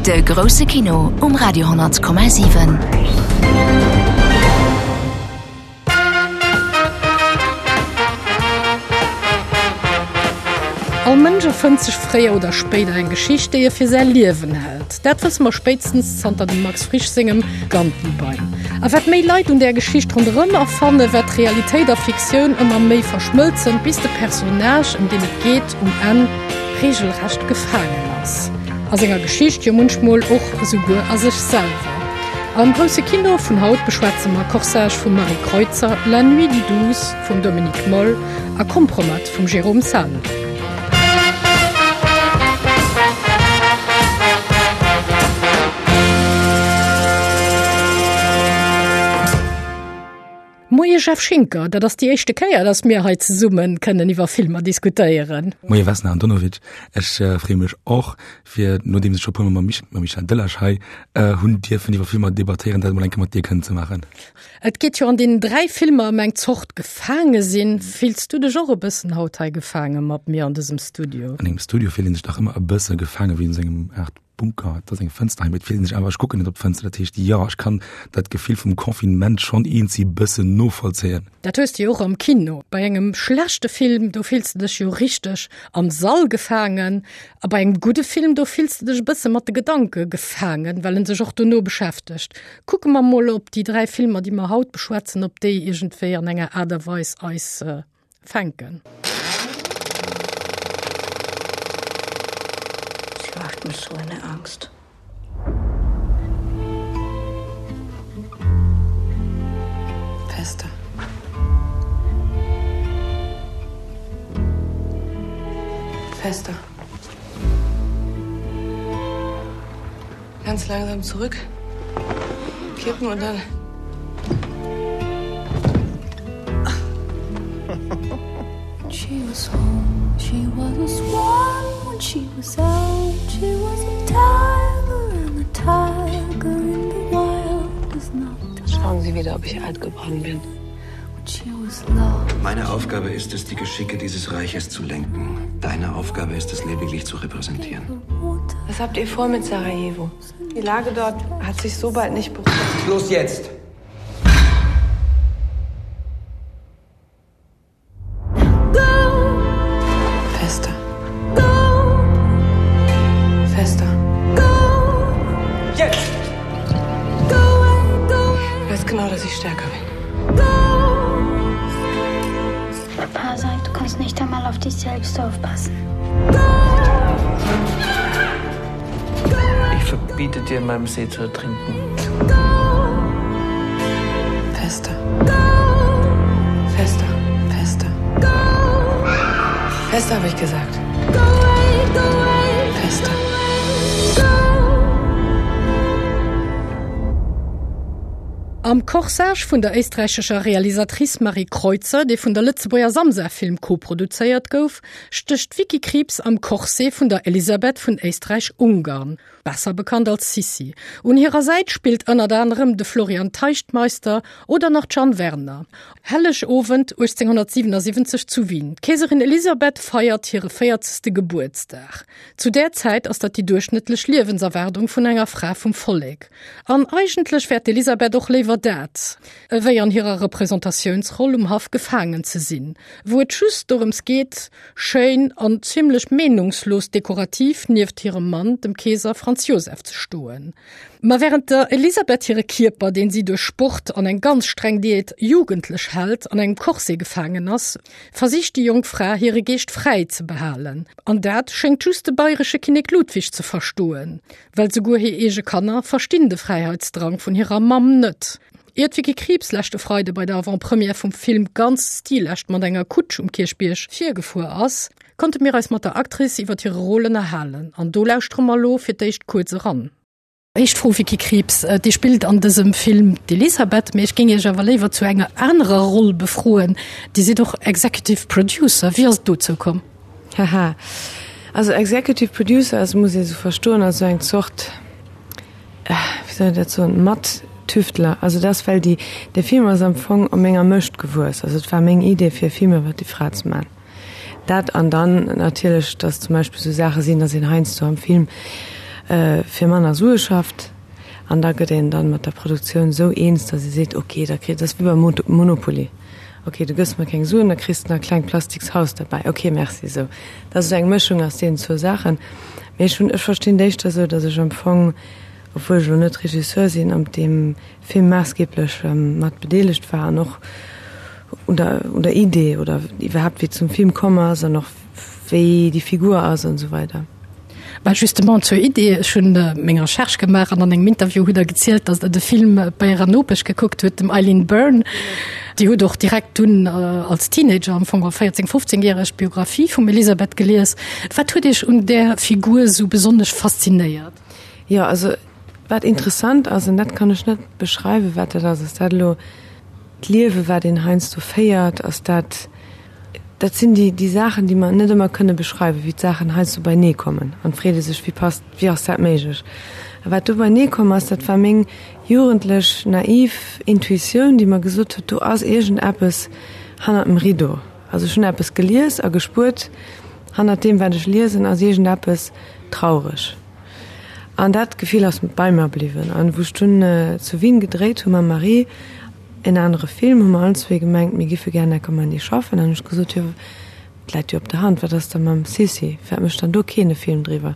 De grousse Kino um Radio 10,7. All Mënsch erfënnt sech fréier oder spéider eng Geschicht, déi e fir säi Liewen hält. Dat wësse mer spéitstens zanter dem Max Frisch sengem Gantenbein. A wat méi Leit un där Geschicht ronderëm erfannen, wat Realitéit a Fiktioun ëmmer méi verschmëlzen, bis de Personnage, ëm deen et geet, um Enn reegelrecht gefaangen ass. A senger Geschicht, jo munchmol och esouguer a sech selwer. Am grousse Kino vun haut beschwätze mer Corsage vum Marie Kreutzer, La nuit du 12 vum Dominik Moll a Kompromat vum Jérôme Salle. Moie Jeff Schinker, dat ass déi éischte Kéier, datt mir hei zesumme kënnen iwwer Filmer diskutéieren. Moie Vesna Andonovic, ech freeë mech och, fir nodeems ech scho puer Mol mam Michel Delage hei hunn dierfen iwwer Filmer debattéieren, dat emol eng Kéier mat dir kënnen ze maachen. Et geet jo an deenen 3 Filmer ëm eng Zort Gefaange sinn. Fills du dech och e bëssen haut hei gefaange mat mir an dësem Studio? An engem Studio fillt een sech dach ëmmer e bësse gefaange wéi an sengem Aart Bunker, et ass eng Fënster hei, mee et fillt een sech awer, ech kucken net op d'Fënster, dat heescht jo, ech kann dat Gefill vum Confinement schonn eenzi bëssen novollzéien. Dat hues de jo och am Kino. Bei engem schlechte Film, do fills de dech jo richteg am Sall gefaangen. A bei engem gudde Film, do fills de dech e bësse mat de Gedanke gefaangen, well en sech och dono beschäftegt. Kucke mer mol, ob déi 3 Filmer, déi mer haut beschwätzen, ob déi iergendwéi an enger Aart a Weis eis fänken. Sie macht mir so eine Angst. Fester. Fester. Ganz langsam zurück. Kippen und dann. She was home, she was a swan when she was out. She was a tiger and a tiger in the wild is not. Schauen Sie wieder, ob ich alt geworden bin. Meine Aufgabe ist es, die Geschicke dieses Reiches zu lenken. Deine Aufgabe ist es lediglich zu repräsentieren. Was habt ihr vor mit Sarajevo? Die Lage dort hat sich so bald nicht beruhigt. Schluss jetzt! Fester. Fester. Jetzt! Du weißt genau, dass ich stärker bin. Papa sagt, du kannst nicht einmal auf dich selbst aufpassen. Ich verbiete dir, in meinem See zu ertrinken. Fester. Fester, fester. Fester habe ich gesagt. Fester. Am Corsage vun der éisträichescher Realisatrice Marie Kreutzer, dee vun der Lëtzebuerger Samsa Film koproduzéiert gouf, stécht d'Vicky Krieps am Corset vun der Elisabeth vun Éisträich-Ungarn. Besser bekannt als Sissi. Un hirer Säit spillt ënnert anerem de Florian Teichtmeister oder nach d'Jeanne Werner. Hellegowend 1877 zu Wien. D'Keeserin Elisabeth feiert hire véierzegste Gebuertsdag. Zu där Zäit ass dat déi duerchschnëttlech Liewenserwaardung vun enger Fra vum Vollek. An eigentlech wär d'Elisabeth och léiwer dat, ewéi an hirer Representatiounsroll um Haff gefaangen ze sinn, wou et just dorëms geet, Schéin an zimlech meenungslos dekorativ nieft hirem Mann, dem Keeser Franz Joseph, ze stoen. Ma wärend der Elisabeth hire Kierper, deen si duerch Sport an eng ganz streng Diät jugendlech hält, an engem Corset gefaangen ass, versicht déi jonk Fra hire Geescht fräi ze behalen. An dat schéngt just de bayresche Kinnek Ludwig ze verstoen, well souguer hir eege Kanner verstinn de Fräiheitsdrang vun hirer Mamm net. Ier d'Vicky Krieps leschte Freide bei der Avant-Première vum Film ganz stilecht mat enger Kutsch um Kierchbierg virgefuer ass, konnte mir eis mat der Actrice iwwer hire Rôle ënnerhalen. An do lauschtere mer elo fir d'éischt kuerz eran. Éischt Fro, Vicky Krieps, Dir spillt an dësem Film d'Elisabeth, mee ech géing Iech awer léiwer zu enger anerer Roll befroen. Dir sidd och Executive Producer. Wéi ass et dozou komm? Haha, also Executive Producer ass, muss ee sou verstoen, als sou eng Zort, wéi soll een dat soen, Mat-Tüftler. Also dat ass well déi, dee Film ass am Fong op menger Mëscht gewuess. Also et war meng Idee fir e Film iwwer déi Fra ze man. Dat an dann natierlech, datt zum Beispill sou Saache sinn, datt een heiansdo am Film. fir manner Sue schafft. An da gëtt een dann mat der Produktioun esou eens, datt ee seet, ok, da kritt, dat ass wéi beim Monopoly, ok, du gëss mer keng Suen, da kriss de nach e klengt plastiks Haus derbäi, ok, merci. Esou, dat ass esou eng Mëschung aus deenen zwou Saachen. Mee ech hunn, ech verstinn d'éischter esou, datt ech am Fong, obwuel ech elo net Regisseur sinn, an deem Film maassgeeblech mat bedeelegt war an och un der, un der Idee oder iwwerhaapt wéi et zum Film komm ass an och wéi déi Figur ass an esou weider. Bah justement zur Idee, ech hunn meng Recherche gemaach an an engem Interview hutt Der gezielt, datt Der de Film bei Ärer Nopesch gekuckt hutt, dem Eileen Byrne. Dir hutt och direkt dunn als Teenager, am Fong 14, 15 järeg, d'Biographie vum Elisabeth gelies. Wat huet Iech un där Figur esou besonnesch faszinéiert? Jo, also Wat interessant ass, an dat kann ech net beschreiwen, wat dat ass, ass dat elo d'Liewe wat een heiansdo féiert, ass dat, dat sinn déi, déi Saachen, déi mer net ëmmer kënne beschreiwen, wéi d'Saachen heiansdo beinee kommen an et freet ee sech, wéi passt, wéi ass dat méiglech? A wat do beinee komm ass, dat war meng jugendlech naiv Intuitioun, déi mer gesot huet, do ass iergendeppes hannert dem Rideau. Also ech hunn eppes gelies a gespuert, hannert deem wat ech liesen ass iergendeppes traureg. An dat Gefill ass bei mer bliwwen. An wou ech dunn zu Wien gedréit hu mam Marie en anere Film, hu mer allen zwee gemengt, mir giffe gär Neckermanni schaffen. An hunn ech gesot, jo, et läit jo op der Hand, wat ass da mam Sissi, firwat mécht dann do keen e Film driwwer?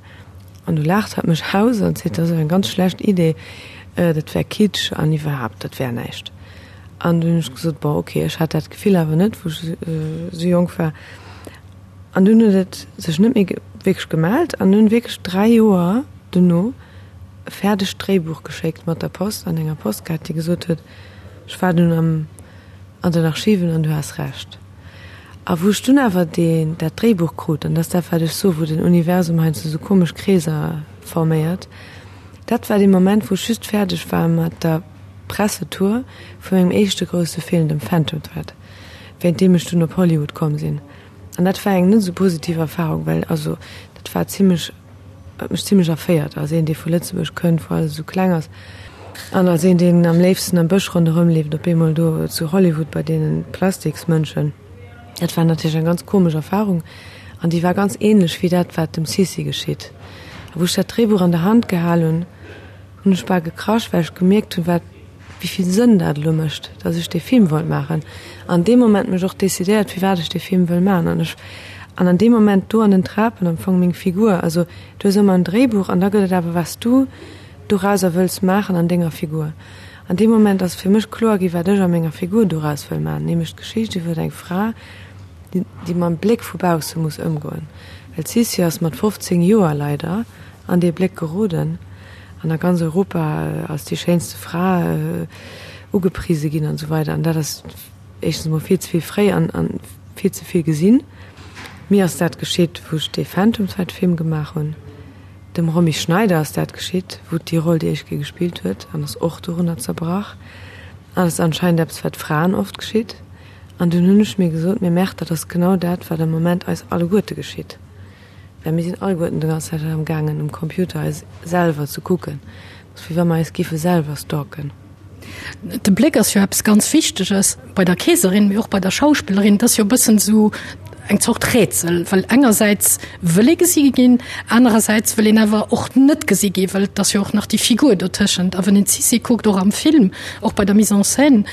An du laacht hatt mech aus an seet, dat ass awer eng ganz schlecht Idee, dat wär Kitsch an iwwerhaapt, dat wär näischt. An dunn hunn ech gesot, bon, okay, ech hat dat Gefill awer net, wou ech esou jonk war. An dunn huet et sech net méi wierklech gemellt an hunn wierklech 3 Joer dono e fäerdegt Dréibuch geschéckt mat der Post an enger Postkaart, déi gesot huet, ech war dunn am an den Archiven an du has Recht. A wou ech dunn awer deen dat Dréibuch krut, an dat ass dat wat ech soe wou den Universum heiansdo sou komesch Kreeser forméiert, dat war dee Moment wou ech just fäerdeg war mat der Pressetour vu mengem éischte grousse Film, dem Phantom Thread, wéint deem ech dunn op Hollywood komm sinn. An dat war eng net esou positiv Erfahrung, well also dat war zimmlech, huet mech zimmlech erféiert als een, dee vu Lëtzebuerg kënnt, wou alles esou kleng ass, an als een, deen am léifsten am Bësch ronderëm leeft, op eemol do zu Hollywood bei deene Plastiksmënschen. Dat war natierlech eng ganz komesch Erfahrung an déi war ganz ähnlech wéi dat, wat dem Sissi geschitt. A wou ech dat Dréibuch an der Hand gehal hunn, hunn ech bal gekrasch, well ech gemierkt hunn, wat, wéi vill Sënn dat elo mécht, datt ech dee Film wollt maachen. An deem Moment mech och decidéiert, firwat ech dee Film wëll maachen. An ech, an an deem Moment do an den Trapen am Fong meng Figur, also du hues ëmmer en Dréibuch an da gëtt et awer wat s du dorauser wëlls maachen an denger Figur. An deem Moment ass fir mech kloer gi wat ech a menger Figur doraus wëll maachen, nämlech d'Geschicht iwwer eng Fra, déi, déi mam Bléck vu bausse muss ëmgoen. Well d'Sissi ass mat 15 Joer leider an dee Bléck geroden an a ganz Europa als déi schéinste Fra ugeprise ginn an esou weider. An dat ass éischtens emol vill ze vill fréi an vill ze vill gesinn. Mir ass dat geschitt, wou ech dee Phantom Thread Film gemaach hunn. Dem Romy Schneider ass dat geschitt, wou déi Roll déi éischt Kéier gespillt huet an ass och dorunner zerbrach. An et ass anscheinend eppes, wat Fraen oft geschitt. An dunn hunn ech mir gesot, Mee Merde, dat ass genau dat, wat am Moment eis alleguerte geschitt. Well mir sinn alleguerten de ganz Zäit am gaangen um Computer eis selwer ze kucken. Et ass wéi wa mer eis giffe selwer stalken. De Bléck ass jo eppes ganz Wichteges bei der Keeserin, mee och bei der Schauspillerin. Et ass jo e bëssen esou eng Zort Rätsel, well engersäits wëll ee gesi ginn, anerersäits wëll een awer och net gesi ginn, well et ass jo och nach déi Figur dotëschent. A wann een d'Sissi kuckt, och am Film, och bei der Mise en scène,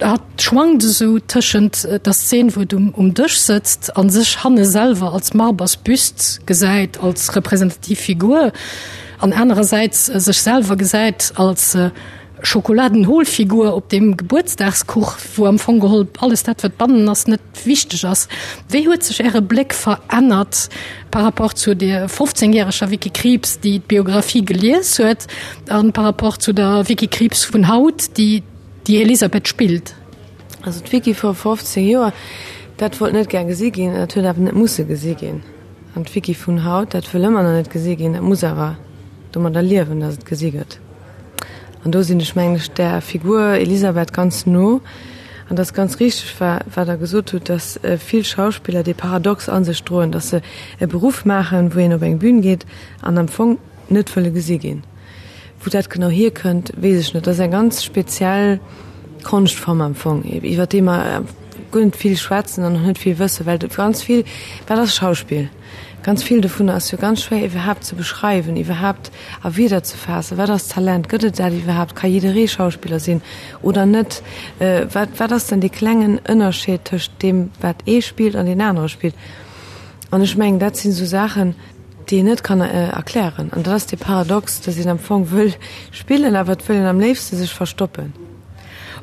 Hatt schwankt esou tëschent der Szen, wou et um Dësch sëtzt a sech hanne selwer als Marbers Büst gesäit, als representativ Figur, an anerersäits sech selwer gesäit als Schokoladenholfigur op deem Gebuertsdagskuch, wou am Fong geholl alles dat, wat bannen ass, net wichteg ass. Wéi huet sech Äre Bléck verännert par rapport zu der 15 järeger Vicky Krieps, déi d'Biographie gelies huet, a par rapport zu der Vicky Krieps vun haut, déi Déi Elisabeth spillt. Also d'Vicky vor 15 Joer, dat wollt net gär gesi ginn, dat huet awer net musse gesi ginn. An d'Vicky vun haut, dat wëll ëmmer nach net gesi ginn, dat muss awer domadder liewen, datt et gesi gëtt. An do sinn ech, mengen ech, där Figur Elisabeth ganz no. An dat ass ganz richteg, wat Der gesot hutt, datt vill Schauspiller dee Paradox a sech droen, datt se e Beruff maachen, wou een op eng Bün geet an am Fong net wëlle gesi ginn. Wou dat genau hierkënnt, weess ech net. Dat ass eng ganz speziell Konschtform am Fong, iwwer déi mer guer net vill schwätzen an och net vill wëssen, well ganz vill, wat ass Schauspill? Ganz vill dovunner ass jo ganz schwéier iwwerhaapt ze beschreiwen, iwwerhaapt a Wierder ze faassen. Wat ass Talent? Gëtt et dat iwwerhaapt? Ka jidderee Schauspiller sinn oder net? Wat, wat ass dann dee klengen Ënnerscheed tëscht deem, wat ee spillt an deen anere spillt? An ech mengen, dat sinn esou Saachen, déi een net kann erklären. An dat ass dee Paradox, datt een am Fong wëll spillen, awer et wëll een am léifste sech verstoppen.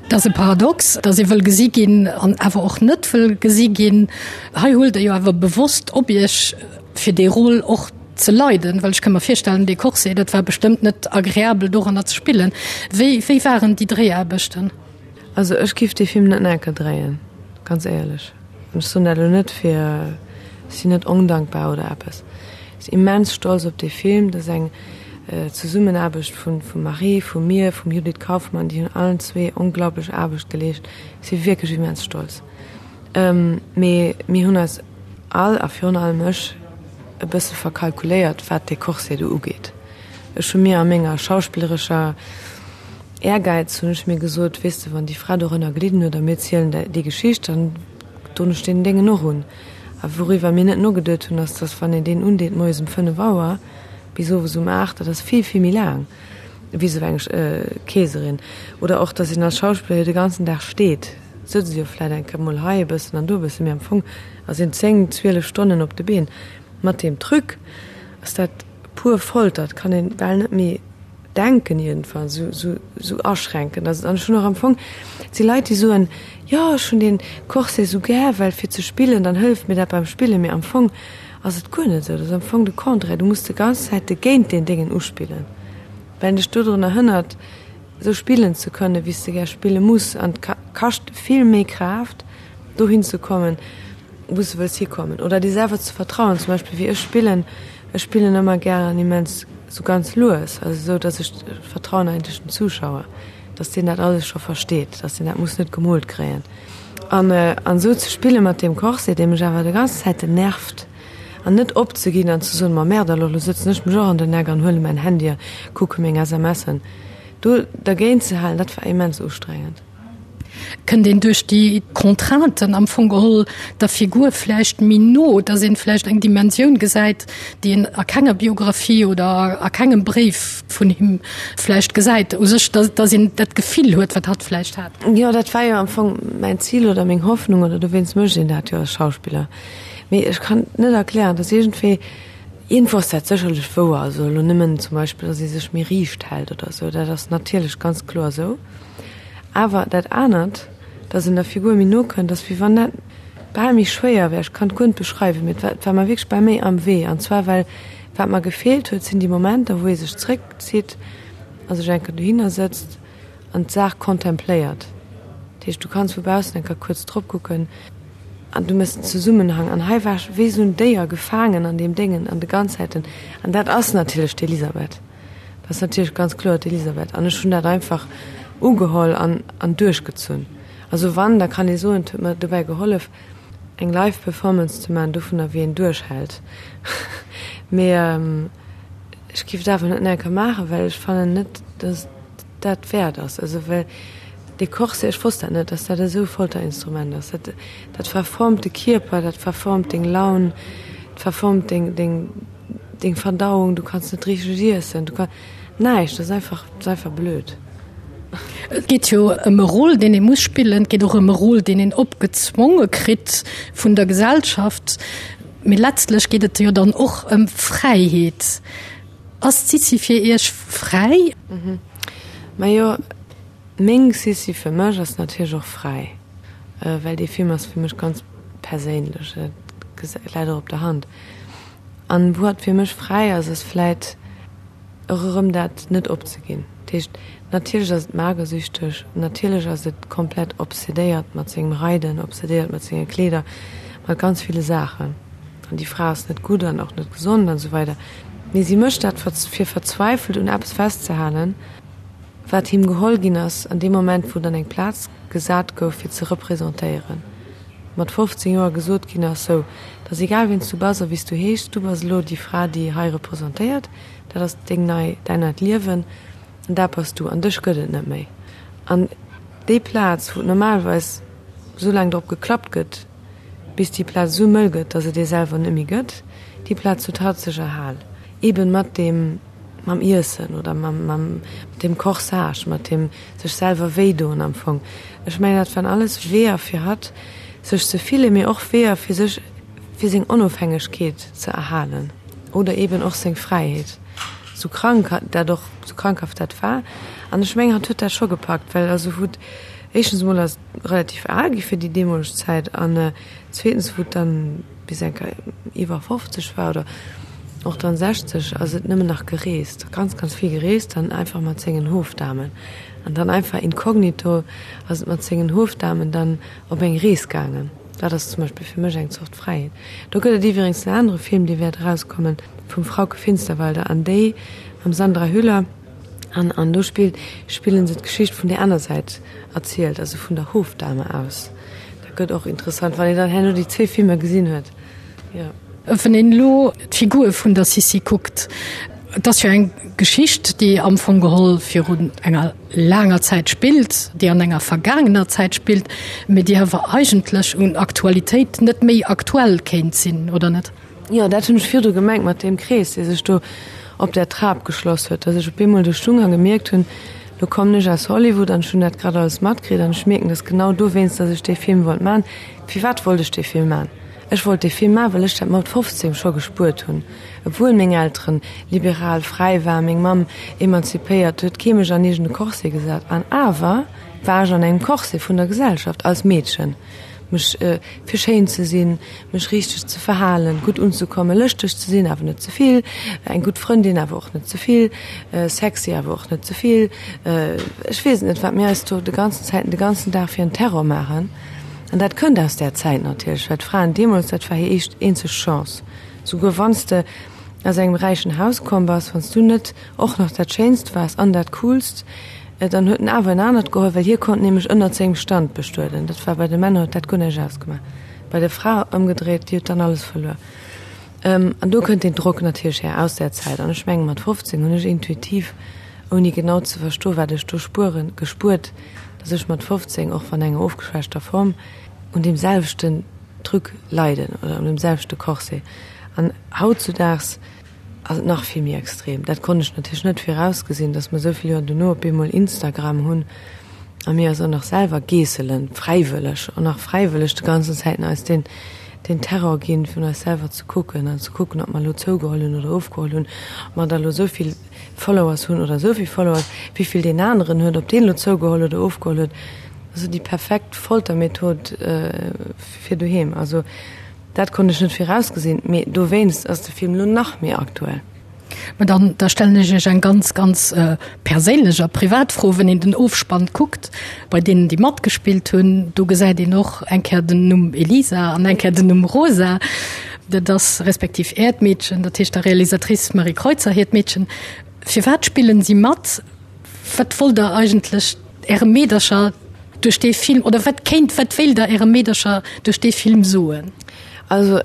Et ass e Paradox, datt ee wëll gesi ginn an awer och net wëll gesi ginn. Hei huelt Der jo awer bewosst op Iech, fir dee Rôle och ze leiden, well ech ka mer virstellen, dee Corset, dat war bestëmmt net agreabel doranner ze spillen. Wéi, wéi waren déi Dréiaarbechten? Also ech giff dee Film net nach eng Kéier dréien, ganz éierlech. An ech soen dat elo net fir, ech sinn net ondankbar oder eppes. Ech sinn immens stolz op dee Film. Dat ass eng Zesummenaarbecht vun vum Marie, vu mir, vum Judith Kaufmann, déi hunn allen zwee onglaublech Aarbecht geleescht. Ech si wierklech immens stolz. Mee mir hunn eis all, a virun allem ech, e bësse verkalkuléiert, wat dee Corset do ugeet. Ech hu mir a menger schauspillerescher Ehrgäiz hunn ech mir gesot, weess de, wann déi Fra dorënner gelidden huet a mir zielen déi Geschicht, dann doen ech deen Déngen och un. A wouriwwer mir net nogeduet hunn, ass, dass wann een deen undeet moies um 5 Auer bis owes um 8, dat ass vill, vill méi laang wéi esou eng Keeserin. Oder och, dass een als Schauspiller jo de ganzen Dag steet. Sëtzt jo vläit eng Kéier mol hei e bëssen an do e bëssen, mee am Fong ass een 10, 12 Stonnen op de Been. Mat deem Truc ass dat pur Folter, et kann een bal net méi denken iergendwann, esou, esou, esou aschränkend ass et. An ech hunn och am Fong, et si Leit, déi soen, jo ech hunn dee Corset esou gär, well fir ze spillen, dann hëlleft mir dat beim Spillen. Mee am Fong ass et guer net esou, dat ass am Fong de Contraire, du muss de ganz Zäit de géint deen Déngen uspillen, well en dech dodrunner hënnert, esou spillen ze kënnen, wéi s de gär spille muss. An et kascht vill méi Kraaft, dohin ze kommen, wou s de wëlls hikommen. Oder dir selwer ze vertrauen. Zum Beispill wéi ech spillen, ech spillen ëmmer gären immens esou ganz lues, also esou, datt ech vertrauen eigentlech dem Zuschauer, datt deen dat alles scho versteet, datt deen dat muss net gemoolt kréien. An an esou ze spille mat deem Corset, dee mech awer de ganz Zäiten nervt, an net opzeginn an ze soen, ma merde alors, lo sëtzen ech mech och an den Eck an huele mäin Handy a kucke meng SMSen. Do dergéint ze halen, dat war immens ustrengend. Kënnt een duerch déi Contrainten am Fong geholl der Figur vläicht méi no, dass een vläicht eng Dimensioun gesäit, déi een a kenger Biografie oder a kengem Bréif vun him vläicht gesäit, u sech, dass, dass een dat Gefill huet, wat hatt vläicht hat? Jo, dat war jo am Fong mäin Zil oder meng Hoffnung, oder dowéinst mécht een dat jo als Schauspiller. Mee ech kann et net erklären, et ass iergendwéi, iergendwou ass dat sécherlech wouer, also elo nëmmen zum Beispill, datt ee sech méi riicht hält oder esou, dat ass natierlech ganz kloer esou. Awer dat anert, datt een der Figur méi no kënnt, ass wéi wann dat bal méi schwéier wär. Ech kann et guer net beschreiwen, mee et war, et war mer wierklech bal méi am Wee. An zwar well wat mer gefeelt huet, sinn déi Momenter, wou ee sech zréckzitt a sech eng Kéier dohinner sëtzt an d'Saach kontempléiert. Dat heescht, du kanns vu baussen eng Kéier kuerz drop kucken an du méchs den Zesummenhang. An hei war ech wéi esou en Déier gefaangen an deem Déngen an de ganz Zäiten. An dat ass natierlech d'Elisabeth. Dat ass natierlech ganz kloer d'Elisabeth. An ech hunn dat einfach ugeholl an, an duerchgezunn. Also wann, da kann ee soen, et huet mer dobäi gehollef, eng Live Performance ze maachen dovunner, wéi een duerchhält. Mee ech géif et awer net nach eng Kéier maachen, well ech fannen net, dass et dat wäert ass. Also well dee Corset, ech wosst dat net, dass dat esou e Folterinstrument ass. Dat, dat verformt de Kierper, dat verformt deng Laun, dat verformt deng, deng, deng Verdauung, du kanns net richteg iessen, du kann näischt, dat ass einfach, dat ass einfach blöd. Et geet jo ëm e Rôle, deen ee muss spillen, et geet och ëm e Rôle, deen een opgezwonge kritt vun der Gesellschaft. Mee letztlech geet et jo dann och ëm Fräiheet. Ass d'Sissi fir Iech fräi? Majo, meng Sissi fir mech ass natierlech och fräi, well dee Film ass fir mech ganz perséinlech, dat läit och op der Hand. An wou hatt fir mech fräi ass, ass vläit och erëm dat net opzeginn. Dat heescht, natierlech ass et magersüchteg, natierlech ass et komplett obsedéiert mat sengem Reiden, obsedéiert mat senge Kleeder, mat ganz ville Saachen. An déi Fra ass net gutt an och net gesond an esou weider. Mee si mécht dat fir verzweifelt un eppes festzehalen, wat him geholl ginn ass an deem Moment, wou et an eng Plaz gesat gouf, fir ze representéieren. Mat 15 Joer gesot ginn ass, sou, et ass egal wien s du bass a wéi s du heeschs, du bass elo déi Fra, déi hei representéiert, dat ass deng nei, däin neit Liewen an dat bass du an dech gëtt et net méi. An déi Plaz, wou et normalerweis esou laang drop geklappt gëtt, bis déi Plaz esou mëll gëtt, datt et ee selwer net méi gëtt. Déi Plaz huet hatt sech erhal, eben mat deem, mam Iessen oder mam, mam, mat deem Corsage, mat deem sech selwer wéidoen am Fong. Ech mengen, dat waren alles Weeër fir hatt, sech ze fillen, mee och Weeër fir sech, fir seng Onofhängegkeet ze erhalen oder eben och seng Fräiheet, sou krank dat och, sou krankhaft dat war. An ech mengen, hatt huet dat scho gepackt, well also wou, éischtens emol ass et relativ al gi fir déi deemoleg Zäit an zweetens wou et dann bis eng Kéier iwwer 50 war oder och dann 60, ass et nëmmen nach gereest, ganz, ganz vill gereest an einfach mat sengen Hofdamen. An dann einfach inkognito ass et mat sengen Hofdamen dann op eng Rees gaangen. Dat ass zum Beispill fir mech eng Zort Fräiheet. Do gëtt et iwwerengs en anere Film, dee wäert erauskommen, vum Frauke Finsterwalder an déi mam Sandra Hüller. An an do spillt, spillen se d'Geschicht vun där aner Säit erzielt, also vun der Hofdame aus. Dat gëtt och interessant, wann een dann herno déi zwee Filmer gesinn huet. Jo. Wann een elo d'Figur vun der Sissi kuckt, et ass jo eng Geschicht, déi am Fong geholl virun enger laanger Zäit spillt, déi an enger vergaangener Zäit spillt, mee déi awer eigentlech un Aktualitéit net méi aktuell kéint sinn, oder net? Jo, dat hunn ech virdru gemengt mat deem Krees, dee sech do op där Trap geschloss huet, dass ech op eemol do stung a gemierkt hunn, lo kommen ech aus Hollywood an ech hunn dat grad alles matkritt an ech mierken, dass genau dowéinst, dass ech dee Film wollt man. Firwat wollt ech dee Film man? Ech wollt dee Film man, well ech dat mat 15 scho gespuert hunn. Obwuel meng Elteren liberal, fräi waren, meng Mamm emanzipéiert, huet kee mech an iergend e Corset gesat an awer war ech an engem Corset vun der Gesellschaft als Meedchen. Mech fir schéin ze sinn, mech richteg ze verhalen, gutt unzekommen, lëschteg ze sinn, awer net ze vill, eng gutt Frëndin, awer och net ze vill, sexy, awer och net ze vill. Ech weess et net, wat mir eis do de ganzen Zäiten, de ganzen Dag fir en Terror maachen. An dat kënnt aus där Zäit natierlech, well d'Fraen deemools, dat war hir eescht eenzeg Chance. Souguer wann s de aus engem räichen Haus komm bass, wann s du net och nach dat Schéinst waars an dat Coolst, dann huet en awer en anert geholl, well hie konnt nämlech ënnert sengem Stand bestueden. Dat war bei de Männer, huet dat guer näischt ausgemaach. Bei der Fra ëmgedréit, déi huet dann alles verluer. An do kënnt deen Drock natierlech här aus där Zäit. An ech menge mat 15 hunn ech intuitiv, ouni genau ze verstoen, wat ech do spueren, gespuert, datt ech mat 15, och wann enger ofgeschwächter Form, un deem selwechten Truc leiden oder un deem selwechte Corset. An hautzudaags ass et nach vill méi extrem. Dat konnt ech natierlech net virausgesinn, datt mer esou vill Joer dono op eemol Instagram hunn a mir eis och nach selwer geesselen, fräiwëlleg, och nach fräiwëlleg de ganzen Zäiten eis deen, deen Terror ginn, vun eis selwer ze kucken an ze kucken, ob mer elo zougeholl hunn oder ofgeholl hunn, ob mer da elo esou vill Followers hunn oder esou vill Followers, wéi vill deen aneren huet, ob deen elo zougeholl oder ofgeholl huet. Also déi perfekt Foltermethod fir doheem. Also. Dat konnt ech net virausgesinn, mee dowéinst ass de Film lo nach méi aktuell. Mä dann, da stellen ech Iech eng ganz, ganz perséinlech a privat Fro, Wenn een den Ofspann kuckt, bei deenen, déi matgespillt hunn, do gesäit een och eng Kéier den Numm Elisa an eng Kéier den Numm Rosa. Dat ass respektiv Äert Meedchen, dat heescht der Realisatrice Marie Kreutzer hiert Meedchen. Firwat spillen si mat? Wat wollt Der eigentlech Äre Meedercher duerch dee Film, oder wat kéint, wat wéilt Der Äre Meedercher duerch dee Film soen? Also,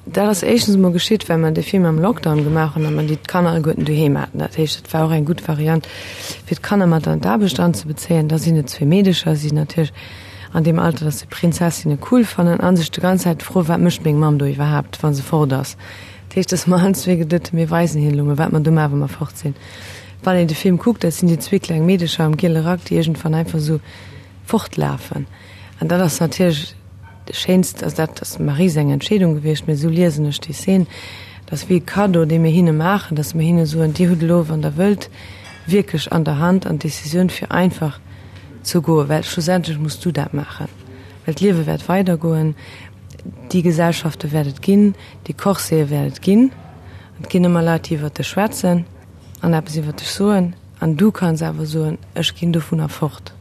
dat ass éischtens emol geschitt, well mer dee Film am Lockdown gemaach hunn a mer déi d'Kanner alleguerten doheem haten. Dat heescht, dat war och eng gutt Variant, fir d'Kanner mat an d'Aarbecht anzebezéien. Da sinn et zwee Meedecher, si sinn natierlech an deem Alter, dass se Prinzessinne cool fannen a sech de ganz Zäit froen, Wat mécht meng Mamm do iwwerhaapt, wa se fort ass? Dat heescht, dass mer allen zwee geduet hunn, mir weisen hinnen elo mol, wat mer do maachen, wa mer fort sinn. Wann een de Film kuckt, dat sinn déi zwee kleng Meedecher am giele Rack, déi iergendwann einfach esou fortlafen. An dat ass natierlech de schéinst, also dat ass dem Marie seng Entscheedung gewiescht, mee esou liesen ech déi Szen, dat ass wéi e Cadeau, dee mir hinne maachen, datt mir hinne soen, Dir hutt elo, wann Der wëllt, wierklech an der Hand an d'Decisioun fir einfach ze goen, well schlussendlech muss du dat maachen, well d'Liewe wäert weidergoen, déi Gesellschafte wäert et ginn, déi Corsete wäert et ginn, et ginn ëmmer Leit, déi iwwert dech schwätzen. An eppes iwwer dech soen, an du kanns awer soen, ech ginn dovunner fort,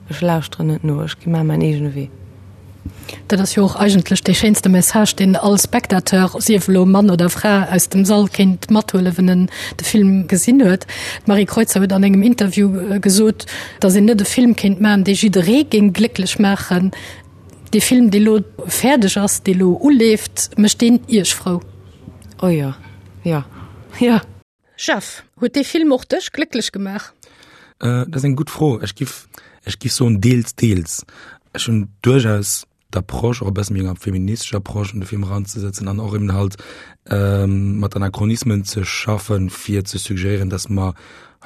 ech lauschteren net no, ech gi mar mäin eegene Wee. Dat ass jo och eigentlech dee schéinste Message, deen all Spectateur, sief elo Mann oder Fra, aus dem Sall kéint mathuelen, wenn en de Film gesinn huet. D'Marie Kreutzer huet an engem Interview gesot, datt een net e Film kéint maachen, dee jidderee géing glécklech maachen. Dee Film, dee lo fäerdeg ass, dee lo uleeft, mécht deen Iech frou? Oh jo, jo, jo. Jeff, huet dee Film och dech glécklech gemaach? Dat ass eng gutt Fro. Ech giff, ech giff soen deels, deels. Ech hunn duerchaus d'Approche och e bësse méi enger feministescher Approche un de Film eranzesetzen an och eben halt ähm, mat Anachronismen ze schaffen, fir ze suggéieren, dass mer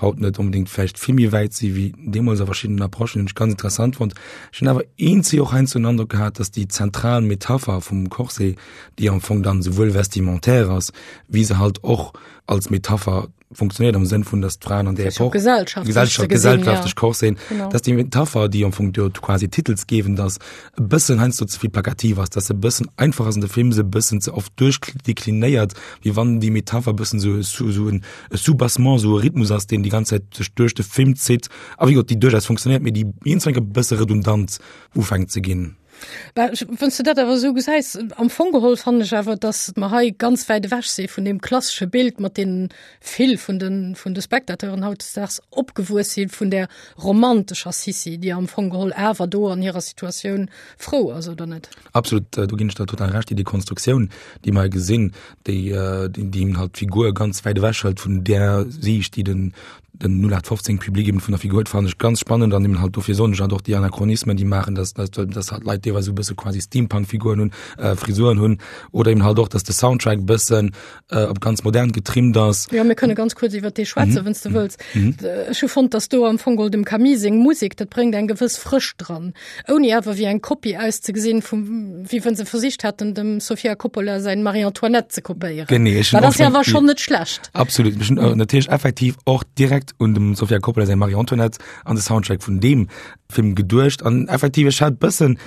haut net unbedingt vläicht vill méi wäit si wéi deemools a verschiddenen Approchen, hunn ech ganz interessant fonnt. Ech hunn awer eenzi och heiansdo den Androck gehat, dass déi zentral Metapher vum Corset, déi am Fong dann souwuel vestimentaire ass, wéi se halt och als Metapher funktionéiert am Sënn vun, dass d'Fraen an der Epoch gesellschaftlech Gesellschaft, gesellschaftlech Corset, genau. dass déi Metapher, déi am Fong dort quasi titelsgebend ass, e bëssen heiansdo ze vill plakativ ass, dass se e bëssen einfach ass an de Film se e bëssen ze oft duerchdeklinéiert, wéi wann déi Metapher e bëssen sou sou sou en e Soubassement, sou e Rhythmus ass, deen déi ganz Zäit sech duerch de Film zitt a wéi gesot, déi duerchaus funktionéiert, mee déi iergendwann e bësse redundant ufänkt ze ginn. Bah, wann s de dat awer esou gesäis, am Fong geholl fannen ech awer, datt mer hei ganz wäit ewech si vun deem klassesche Bild, mat deem vill vun de, vun de Spectateuren hautdesdaags opgewuess sinn, vun där romantescher Sissi, déi am Fong geholl awer do an hirer Situatioun frou ass, oder net? Absolut, do ginn ech der total Recht. Déi Dekonstruktioun, déi mer hei gesinn, déi, déi halt d'Figur ganz wäit ewech hëlt vun där Siicht, déi den, den 0815 Public eben vun der Figur huet, fannen ech ganz spannend an eben halt dofir soen ech halt och déi Anachronismen, déi maachen, dass, dass, dass halt Leit deelweis esou e bësse quasi Steampunk-Figuren hunn, äh, Frisuren hunn oder eben halt och, dass de Soundtrack e bëssen äh, op ganz modern getrimmt ass. Jo, mir kënne ganz kuerz iwwer dee schwätzen, mhm. wann s du wëlls. Mhm. Ech hu fonnt, dass do am Fong geholl dem Camille seng Musek, dat bréngt eng gewëss Frëscht dran, ouni awer wéi eng Kopie auszegesinn, vum, wéi wann se versicht hätten, dem Sofia Coppola säin Marie-Antoinette ze kopéieren. Genee, ech hunn Well dat och ass jo schon- awer schonn net schlecht. Absolut. Ech hunn äh, natierlech effektiv och direkt un dem Sofia Coppola säin Marie-Antoinette an de Soundtrack vun deem Film geduecht. An effektiv, ech hat bëssen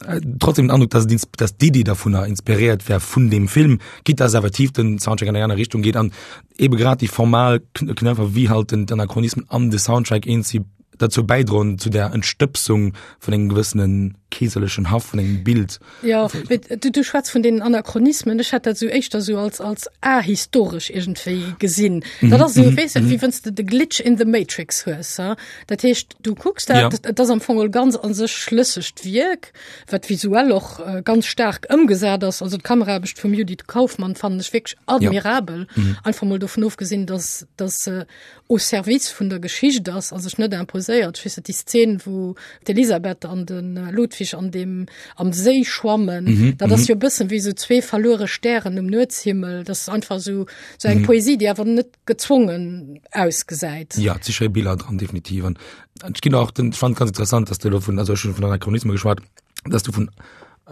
äh, trotzdem den Androck, dass, et ins- dass d'Iddi dovunner inspiréiert wär vun deem Film, quitte dass effektiv den Soundtrack an eng aner Richtung geet an ebe grad déi formal Kn- Knöpfer wéi halt den d'Anachronismen an de Soundtrack eens si derzou bäidroen zu der Entstëbsung vun engem gewëssene keeserlechen Haff, vun engem Bild. Jo, mee du, du schwätz vun deenen Anachronismen. Ech hätt dat esou éischter esou als, als ahistoresch iergendwéi gesinn. Dat ass esou, weess de, wéi wann s de de Glitch in the Matrix hues, ha. Dat heescht, du kucks dat, Ja. et ass am Fong e ganz a sech schlëssegt Wierk, wat visuell och ganz staark ëmgesat ass. Also d'Kameraarbecht vum Judith Kaufmann fannen ech wierklech admirabel. Einfach mol dovun ofgesinn, dass, dass se au service vun der Geschicht ass a sech net imposéiert. Ech weess net, déi Szen, wou d'Elisabeth an de Ludwig an deem, am Séi schwammen, mm -hmm. dat ass mhm. jo bëssen wéi sou zwee verluere Stären um Nuetshimmel. Dat ass einfach sou, sou eng mm -hmm. Poesie, déi awer net gezwongen ausgesäit. Ja, et si schéi Biller dran, definitiv. An ech ginn och den, ech fand ganz interessant, dass du elo vun, also ech hunn vun Anachronisme geschwat, dass du vun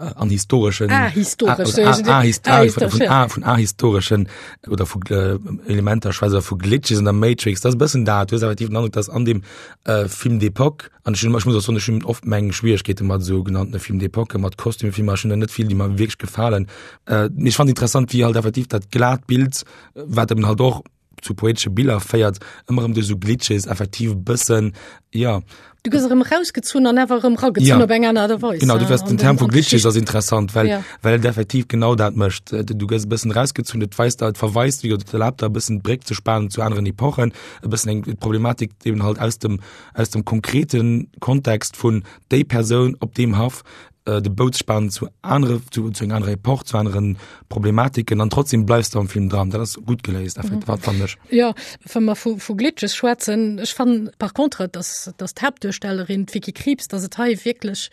äh, an historeschen ah, historesch, ah, ah, ah, ah, vun, ah, vun ahistoreschen oder vu äh, Elementer schwätze vu Glitches in der Matrix das bëssen dat du effektiv den Androck dass an dem äh, Film d'époque an ich, ich muss auch sagen, ich hunn oft meng Schwierigkeete mat so genannten Film d'époque mat Kostümfilmer ech hunn der net vill déi mer wierklech gefalen äh, ich fand interessant wie halt effektiv dat glat Bild wat eben halt och zu poetesche Biller féiert, ëmmer erëm duerch esou Glitches effektiv e bëssen, ja. Du gëss erëm erausgezunn an awer erëm eragezunn ja. op eng aner Aart a Weis. Genau, du wärst den Term vu Glitches ass interessant, well, ja. well et effektiv genau dat mécht. Äh, du gëss e bëssen erausgezunn, et weist et verweist, wéi et erlaabt der e bëssen d'Bréck ze spanen zu aneren Epochen, e bëssen eng Problematik eben halt aus dem, aus dem konkreten Kontext vun déi Persoun op deem Haff äh, de Bout spanen zu anere zu, zu enger anerer Epoch, zu aneren Problematiken an trotzdem bleifst du am Film dran. Dat ass gut geléist, mhm. wat fand ech. Ja, wa mer vu, vu Glitches schwätzen, ech fannen par contre, dass, dass d'Haaptduerstellerin d'Vicky Krieps, dass et hei wierklech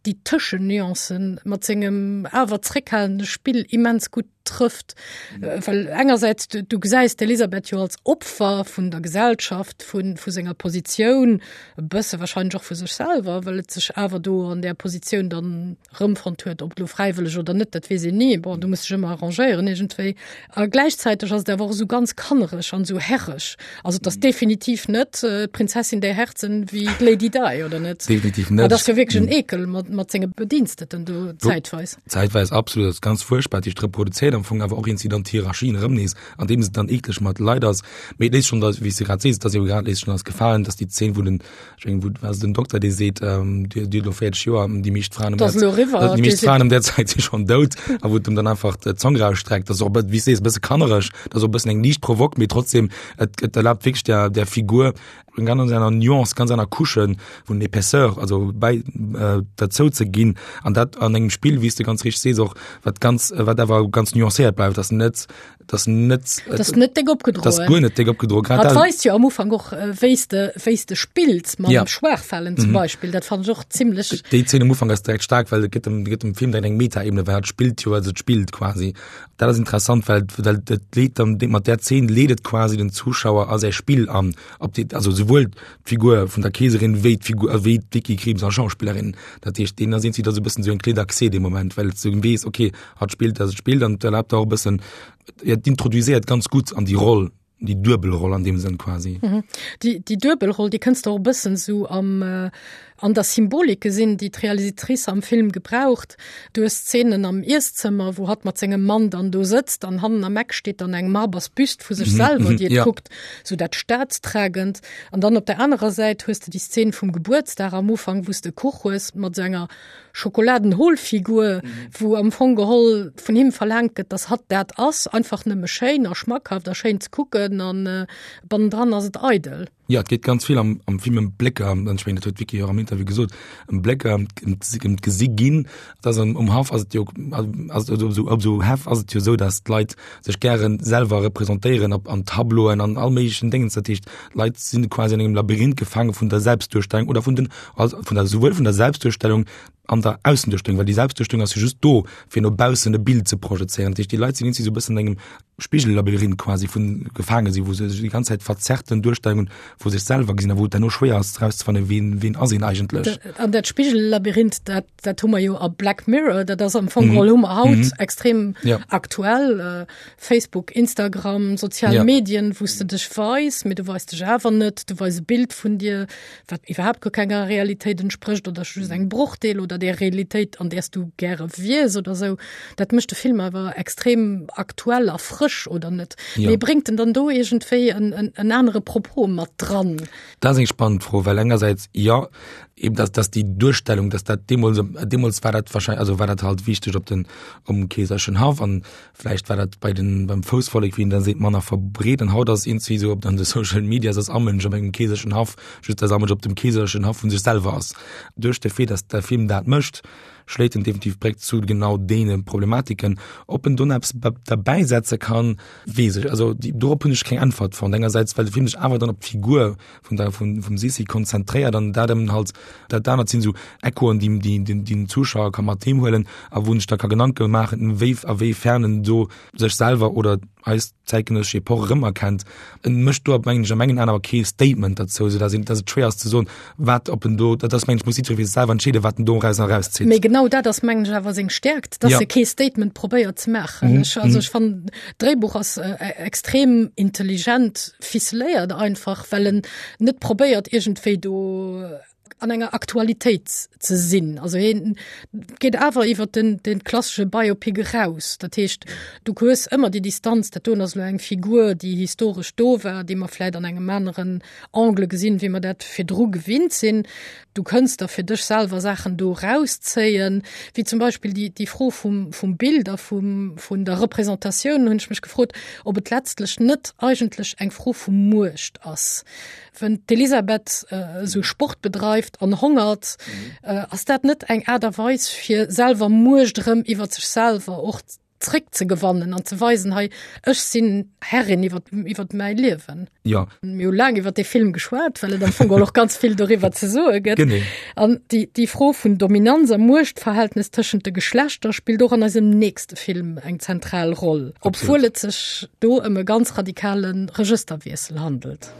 déi Tëschennuancen mat sengem awer zréckhalende Spill immens gutt trëfft. Well engersäits, du, du gesäis d'Elisabeth jo als Opfer vun der Gesellschaft, vun, vu senger Positioun, e bësse wahrscheinlech och vu sech selwer, well et sech awer do an där Positioun dann rëmfonnt huet, ob lo fräiwëlleg oder net, dat weess een ni. Bon, du muss dech ëmmer arrangéieren iergendwéi. A gläichzäiteg ass et awer och esou ganz kannereg an esou herreg. Also et ass definitiv net d'Prinzessin der Herzen wéi d'Lady Di, oder net? Definitiv net. Dat ass jo wierklech en Ekel mat, mat senge Bediensteten do zäitweis. Zäitweis absolut, dat ass ganz fuerchtbar, déi reproduzéiert am Fong awer och iergendwéi dann d'Hierarchien erëm nees, andeem se dann eekleg mat Leit ass. Mee et léisst schonn, wéi s de grad sees, et ass jo grad léisst schonn eis gefalen, dass déi Zeen, wou den, ech mengen, wou war se den Dokter, dee seet, Dir hutt elo 40 Joer, déi meescht Fraen ëm Dat ass elo eriwwer, déi meescht Fraen ëm där Zäit si schonn dout, a wou et em dann einfach d'Zong rausstreckt. Dat ass och e bë, wéi s de sees, e bësse kannereg, dat ass och e bëssen eng liicht Provoque, mee trotzdem, et, et erlaabt wierklech der, der Figur eng ganz aner Nuance, ganz aner Couche vun Épaisseur, also bäi äh, derzou ze ginn an dat an engem Spill, wéi s de ganz richteg sees och, wat ganz, wat awer ganz nuancéiert bleift, dass net. Et ass net Et ass net déck opgedroen. Et ass guer net déck opgedroen. Grad dat weist jo am Ufank och äh, wéi s de wéi s de spills mam ja. Schwaachfalen zum mhm. Beispill. Dat fand ech och zimmlech. Déi Zeen am Ufank ass direkt stark, well et gëtt dem gëtt dem Film direkt eng Metaebene, well et spillt jo, also et spillt quasi. Dat ass interessant, well well et leet dann mat där Zeen leet et quasi den Zuschauer a säi Spill an, ob déi also souwuel d'Figur vun der Keeserin wéi d'Figur äh, wéi d'Vicky Krieps als Schauspillerin. Dat heescht, deen ass irgendwie da so e bëssen sou eng Clé d'accès dee Moment, well s du weess, okay, hatt spillt, dass et spillt an erlaabt auch e bëssen, ja, d'introduiséiert ganz gutt an déi Roll, déi duebel Roll an deem Sënn quasi. Mhm. Déi, déi duebel Roll, déi kënns de och e bëssen sou am, äh, an der Symbolik gesinn, déi d'Realisatrice am Film gebraucht. Du hues Szenen am Iesszëmmer, wou hatt mat sengem Mann dann do sëtzt an hannen am Eck steet dann eng marbers Büst vu sech selwer, déi et ja. kuckt, sou dat Staatstragend. An dann op der anerer Säit hues de déi Szene vum Gebuertsdag am Ufank, wou s de Kuch hues mat sou enger Schokoladenholfigur, wou am Fong geholl vun him verlaangt gëtt, dass hatt dat ass, einfach nëmme schéin a schmackhaft a schéin ze kucken an bannendran ass et eidel. Jo, et geet ganz vill am, am Film ëm Blécker, an ech mengen, dat huet d'Vicky och am Interview gesot, ëm Blécker, ëm ëm d'Gesi ginn. Et ass am, um Haff ass et jo, ass et op esou, op esou Häff ass et jo esou, dass d'Leit sech gäre selwer representéieren op an Tableauen an all méiglechen Déngens. Dat heescht, d'Leit sinn quasi an engem Labyrinth gefaange vun der Selbstduerstellung oder vun den, also vun der, souwuel vun der Selbstduerstellung an der Aussenduerstellung, well déi Selbstduerstellung ass jo just do, fir no baussen e Bild ze projezéieren. Dat heescht, déi Leit sinn irgendwie esou e bëssen an engem Spigellabyrinth quasi vun gefaange sinn, wou se sech déi ganz Zäit verzerrten Duerstellungen vu sech selwer gesinn a wou et herno schwéier ass erauszefannen, wien, wien ass een eigentlech. An dat Spigellabyrinth, dat, dat hu mer jo a Black Mirror, dat ass am Fong geholl, hu mer haut mm. extrem ja. aktuell. Äh, Facebook, Instagram, sozial ja. Medien, wou s de dech weis, mee du weis dech awer net, du weis e Bild vun dir, wat iwwerhaapt guer kenger Realitéit entsprécht oder just eng Brochdeel oder der Realitéit, an där s du gäre wiers oder sou. Dat mécht de Film awer extrem aktuell a frësch, oder net? Ja. Mee bréngt en dann do iergendwéi en, en, en anere Propos mat dran? Dat ass eng spannend Fro, well engersäits jo, eben dass, dass déi Duerstellung, dass dat deemools, deemools war dat wahrscheinlich, also war dat halt wichteg op den, um keeserlechen Haff an Vläicht war dat bei den, beim Foussvollek, wéi een da seet, manner verbreet. An haut ass iergendwéi esou op an de Social Medias ass all Mënsch op engem keeserlechen Haff, just dass all Mënsch op dem keeserlechen Haff vu sech selwer ass. Duerch de Fait, dass de Film dat mécht, schléit en definitiv d'Bréck zu genau deene Problematiken. Ob en do nach eppes derbäisetze kann, weess ech, also dorop hunn ech keng Äntwert fonnt. Engersäits, well de Film sech awer dann op d'Figur vun der vun vum Sissi konzentréiert an dat ëm halt dat anert sinn esou Echoen déi déi den den Zuschauer ka mat heem huelen a wou en sech da ka Gedanke maachen wéi a wéi fern en do sech selwer oder eis zäitgenëssesch Epoch erëmerkennt. En mécht do mengen ech a mengen Aen awer kee Statement derzou, esou datt een datt et schwéier ass ze soen wat ob en do dat ass mengen ech muss jiddweree fir sech selwer entscheeden wat en doraus erauszitt. Mee genau dat ass mengen ech awer seng Stäerkt, datt Ja. e kee Statement probéiert ze maachen. Ech also ech fannen d'Dréibuch ass extrem intelligent ficeléiert einfach, well en net probéiert iergendwéi do an enger Aktualitéit ze sinn. Also hien geet awer iwwer den, den klassesche Biopic eraus. Dat heescht, du hues ëmmer déi Distanz, dat doen ass elo eng Figur, déi historesch do war, déi mer vläit an engem aneren Angle gesinn, wéi mer dat virdru gewinnt sinn. Du kënns der fir dech selwer Saachen do erauszéien, wéi zum Beispill déi, déi Fro vum, vum Bild a vum, vun der Représentatioun, hunn ech mech gefrot, ob et letztlech net eigentlech eng Fro vu Muecht ass. Wenn d'Elisabeth esou Sport bedreift an hongert, ass dat net eng Aart a Weis, fir selwer Muecht erëm iwwer sech selwer och zréckzegewannen an ze weisen, hei, ech sinn Herrin iwwer, iwwer mäi Liewen. Jo. Mir hu laang iwwer dee Film geschwat, well et am Fong och ganz vill doriwwer ze soe gëtt. Genee. An déi, déi Fro vun Dominanz a Muechtverhältnes tëschent de Geschlechter spillt och an eisem nächste Film eng zentral Roll, obwuel et sech do ëm e ganz radikale Regësterwiessel handelt.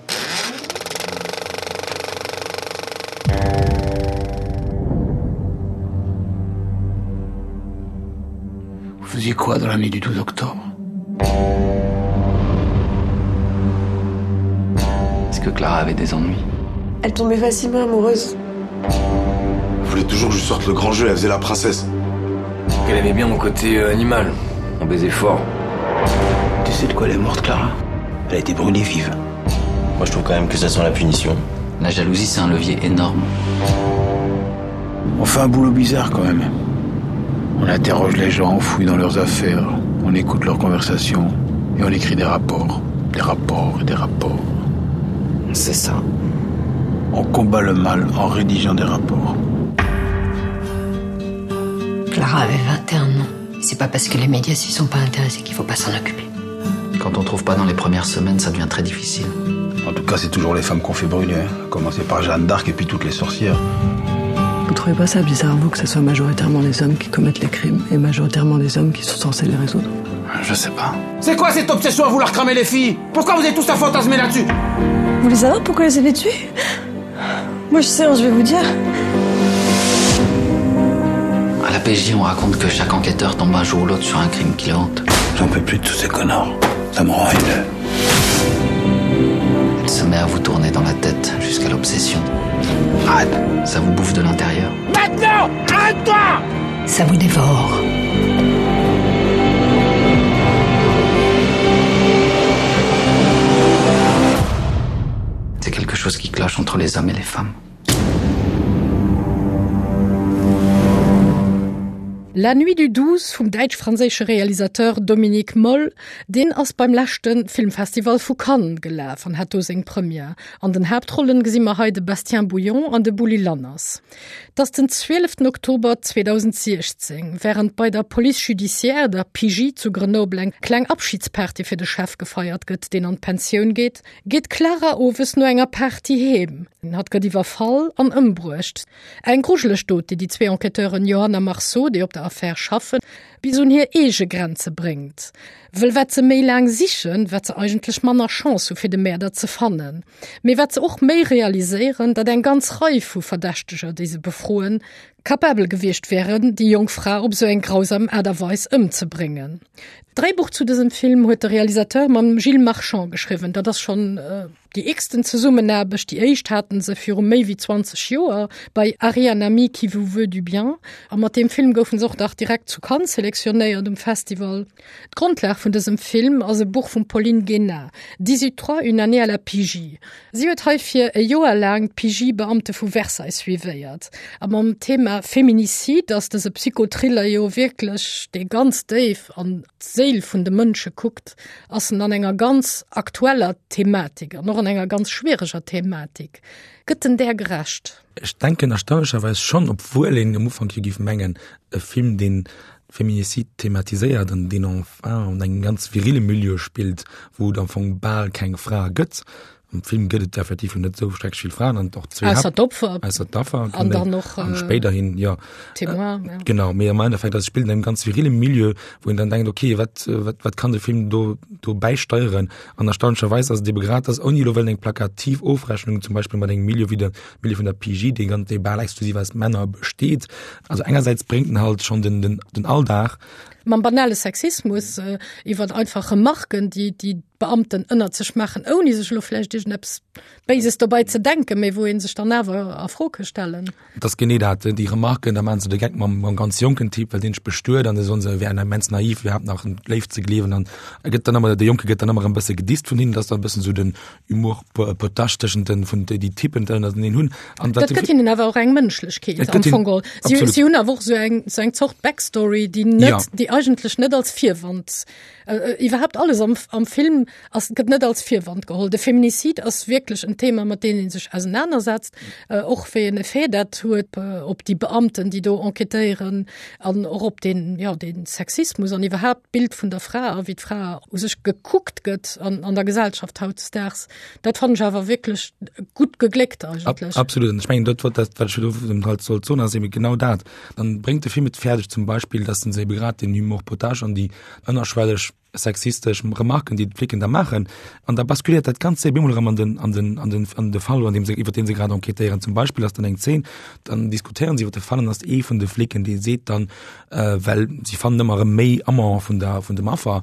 Vous faisiez quoi dans la nuit du 12 octobre Est-ce que Clara avait des ennuis Elle tombait facilement amoureuse. Elle voulait toujours que je sorte le grand jeu, elle faisait la princesse. Elle aimait bien mon côté euh, animal. On baisait fort. Tu sais de quoi elle est morte, Clara Elle a été brûlée vive. Moi je trouve quand même que ça sent la punition. La jalousie c'est un levier énorme. On fait un boulot bizarre quand même. On interroge les gens, on fouille dans leurs affaires, on écoute leurs conversations et on écrit des rapports, des rapports et des rapports. C'est ça. On combat le mal en rédigeant des rapports. Clara avait 21 ans. C'est pas parce que les médias s'y sont pas intéressés qu'il faut pas s'en occuper. Quand on trouve pas dans les premières semaines, ça devient très difficile. En tout cas, c'est toujours les femmes qu'on fait brûler. Hein. Commencer par Jeanne d'Arc et puis toutes les sorcières. Vous trouvez pas ça bizarre, vous, que ce soit majoritairement les hommes qui commettent les crimes et majoritairement les hommes qui sont censés les résoudre Je sais pas. C'est quoi cette obsession à vouloir cramer les filles Pourquoi vous êtes tous à fantasmer là-dessus Vous voulez savoir pourquoi elles avaient tué Moi je sais, hein, je vais vous dire. À la PJ, on raconte que chaque enquêteur tombe un jour ou l'autre sur un crime qui le hante. J'en peux plus de tous ces connards. Ça me rend haineux. Elle se met à vous tourner dans la tête jusqu'à l'obsession. Arrête, ça vous bouffe de l'intérieur. Maintenant Arrête-toi Ça vous dévore. C'est quelque chose qui cloche entre les hommes et les femmes. La nuit du 12 vum däitsch-franséische Realisateur Dominik Moll, deen ass beim leschte Filmfestival vu Cannes gelaf an hat do seng Première. An den Haaptrollen gesi mer hei de Bastien Bouillon an de Bouli Lanners. Et ass den 12 Oktober 2016, wärend bei der Police judiciaire, der PJ zu Grenoble eng kleng Abschidsparty fir de Chef gefeiert gëtt, deen an d'Pensioun geet, geet d'Clara owes no enger Party heem. Hatt gëtt iwwerfall an ëmbruecht. Eng grujeleg Dot, déi déi zwee Enquêteuren Johanna Marceau, déi op der Affär schaffen, bis un hir eege Grenze bréngt. Wëll wat se méi laang sichen, wat se eigentlech manner Chance hu fir de Mäerder ze fannen. Mee wat se och méi realiséieren, datt eng ganz Rei vu Verdächteger, déi se befroen, capabel gewiescht wären, déi jonk Fra op esou eng grausam Aart a Weis ëmzebréngen. D'Dréibuch zu dësem Film huet de Realisateur mam Gilles Marchand geschriwwen. Dat ass schonn déi x-ten Zesummenaarbecht. Déi éischt haten se viru méi wéi 20 Joer bei Harry un ami qui vous veut du bien. A mat deem Film goufen se och nach direkt zu Cannes selektionéiert um Festival. D'Grondlag vun dësem Film ass e Buch vum Pauline Guéna, Dix-huit-trois, une année à la PJ. Si huet heifir e Joer laang d'PJ-Beamte vu Versailles suivéiert. A mam Thema Feminicide ass dëse Psychothriller jo wierklech, dee ganz déif an d'Séil vun de Mënsche kuckt, ass en an enger ganz aktueller Thematik an och an enger ganz schwiereger Thematik. Gëtt en där gerecht? Ech denken erstaunlecherweis schonn, obwuel een am Ufank jo géif mengen, e Film, deen Feminicide thematiséiert an deen enfin an engem ganz virile Milieu spillt, wou et am Fong bal keng Frae gëtt. Am Film gëtt et effektiv jo net esou schrecklech vill Fraen an och zwee Ausser d'Opfer. Ausser d'Affer, An dann och, an spéiderhin, jo. Témoin, ja. Genau, mee am Endeffekt, also et spillt an engem ganz virile Milieu, wou een dann denkt, okay, wat, wat, wat kann de Film do, do bäisteieren? An erstaunlecherweis ass et ebe grad das, ouni elo wëllen eng plakativ Ofrechnung zum Beispill mat engem Milieu wéi de Milieu vun der PJ, dee ganz, dee bal exklusiv aus Männer besteet. Also engersäits bréngt en halt schonn den, den, den Alldag. Mam banale Sexismus, iwwer einfach Remarken, déi, déi d'Beamten ënnert sech maachen, ouni sech elo vläicht iergendeppes Béises dobäi ze denken, mee wou ee sech dann awer a Fro ka stellen. Et ass genee dat, déi Remarken, da maachen se de Geck mam, mam ganz jonken Typ, well deen sech bestuet an da soen se, e wär immens naiv, iwwerhaapt nach un d'Léift ze gleewen an e gëtt dann ëmmer, de Jonke gëtt dann ëmmer e bësse gedisst vun hinnen, dat ass dann e bëssen esou den Humour potache tëschent den, vun déi Typen ënnerteneen hunn. An dat gëtt hinnen awer och eng Mënschlechkeet am Fong geholl. Si, si hunn awer och esou eng, esou eng Zort Backstory, déi net, ja. déi eigentlech net als Virwand äh, iwwerhaapt alles am, am Film ass, gëtt net als Virwand geholl. De Feminicide ass wierklech en Thema, mat deem ee sech ausenanersetzt, äh, och wéi en Effet dat huet äh, op déi Beamten, déi do enquêtéieren an och op den, ja, den Sexismus an iwwerhaapt d'Bild vun der Fra a wéi d'Fra u sech gekuckt gëtt an, an der Gesellschaft hautdesdaags. Dat fannen ech awer wierklech gutt gegléckt eigentlech. Ab, absolut. An ech mengen, dat, wat, dat, wat ech do halt sollt soen, ass eben genau dat. Dann bréngt de Film et fäerdeg zum Beispill, dass en se ebe grad den Humour potache an déi ënnerschwelleg sexistesch Remarken, déi d'Flicken da maachen, an da basculiert dat Ganzt op eemol erëm an den, an den, an den, an de Fall, an deem se, iwwer deen se grad enquêtéieren. Zum Beispill ass dann eng Zeen, dann diskutéieren se iwwer de Fall an ass ee vun de Flicken, dee seet dann, äh, well si fannen ëmmer erëm méi Amant vun der, vun dem Affer,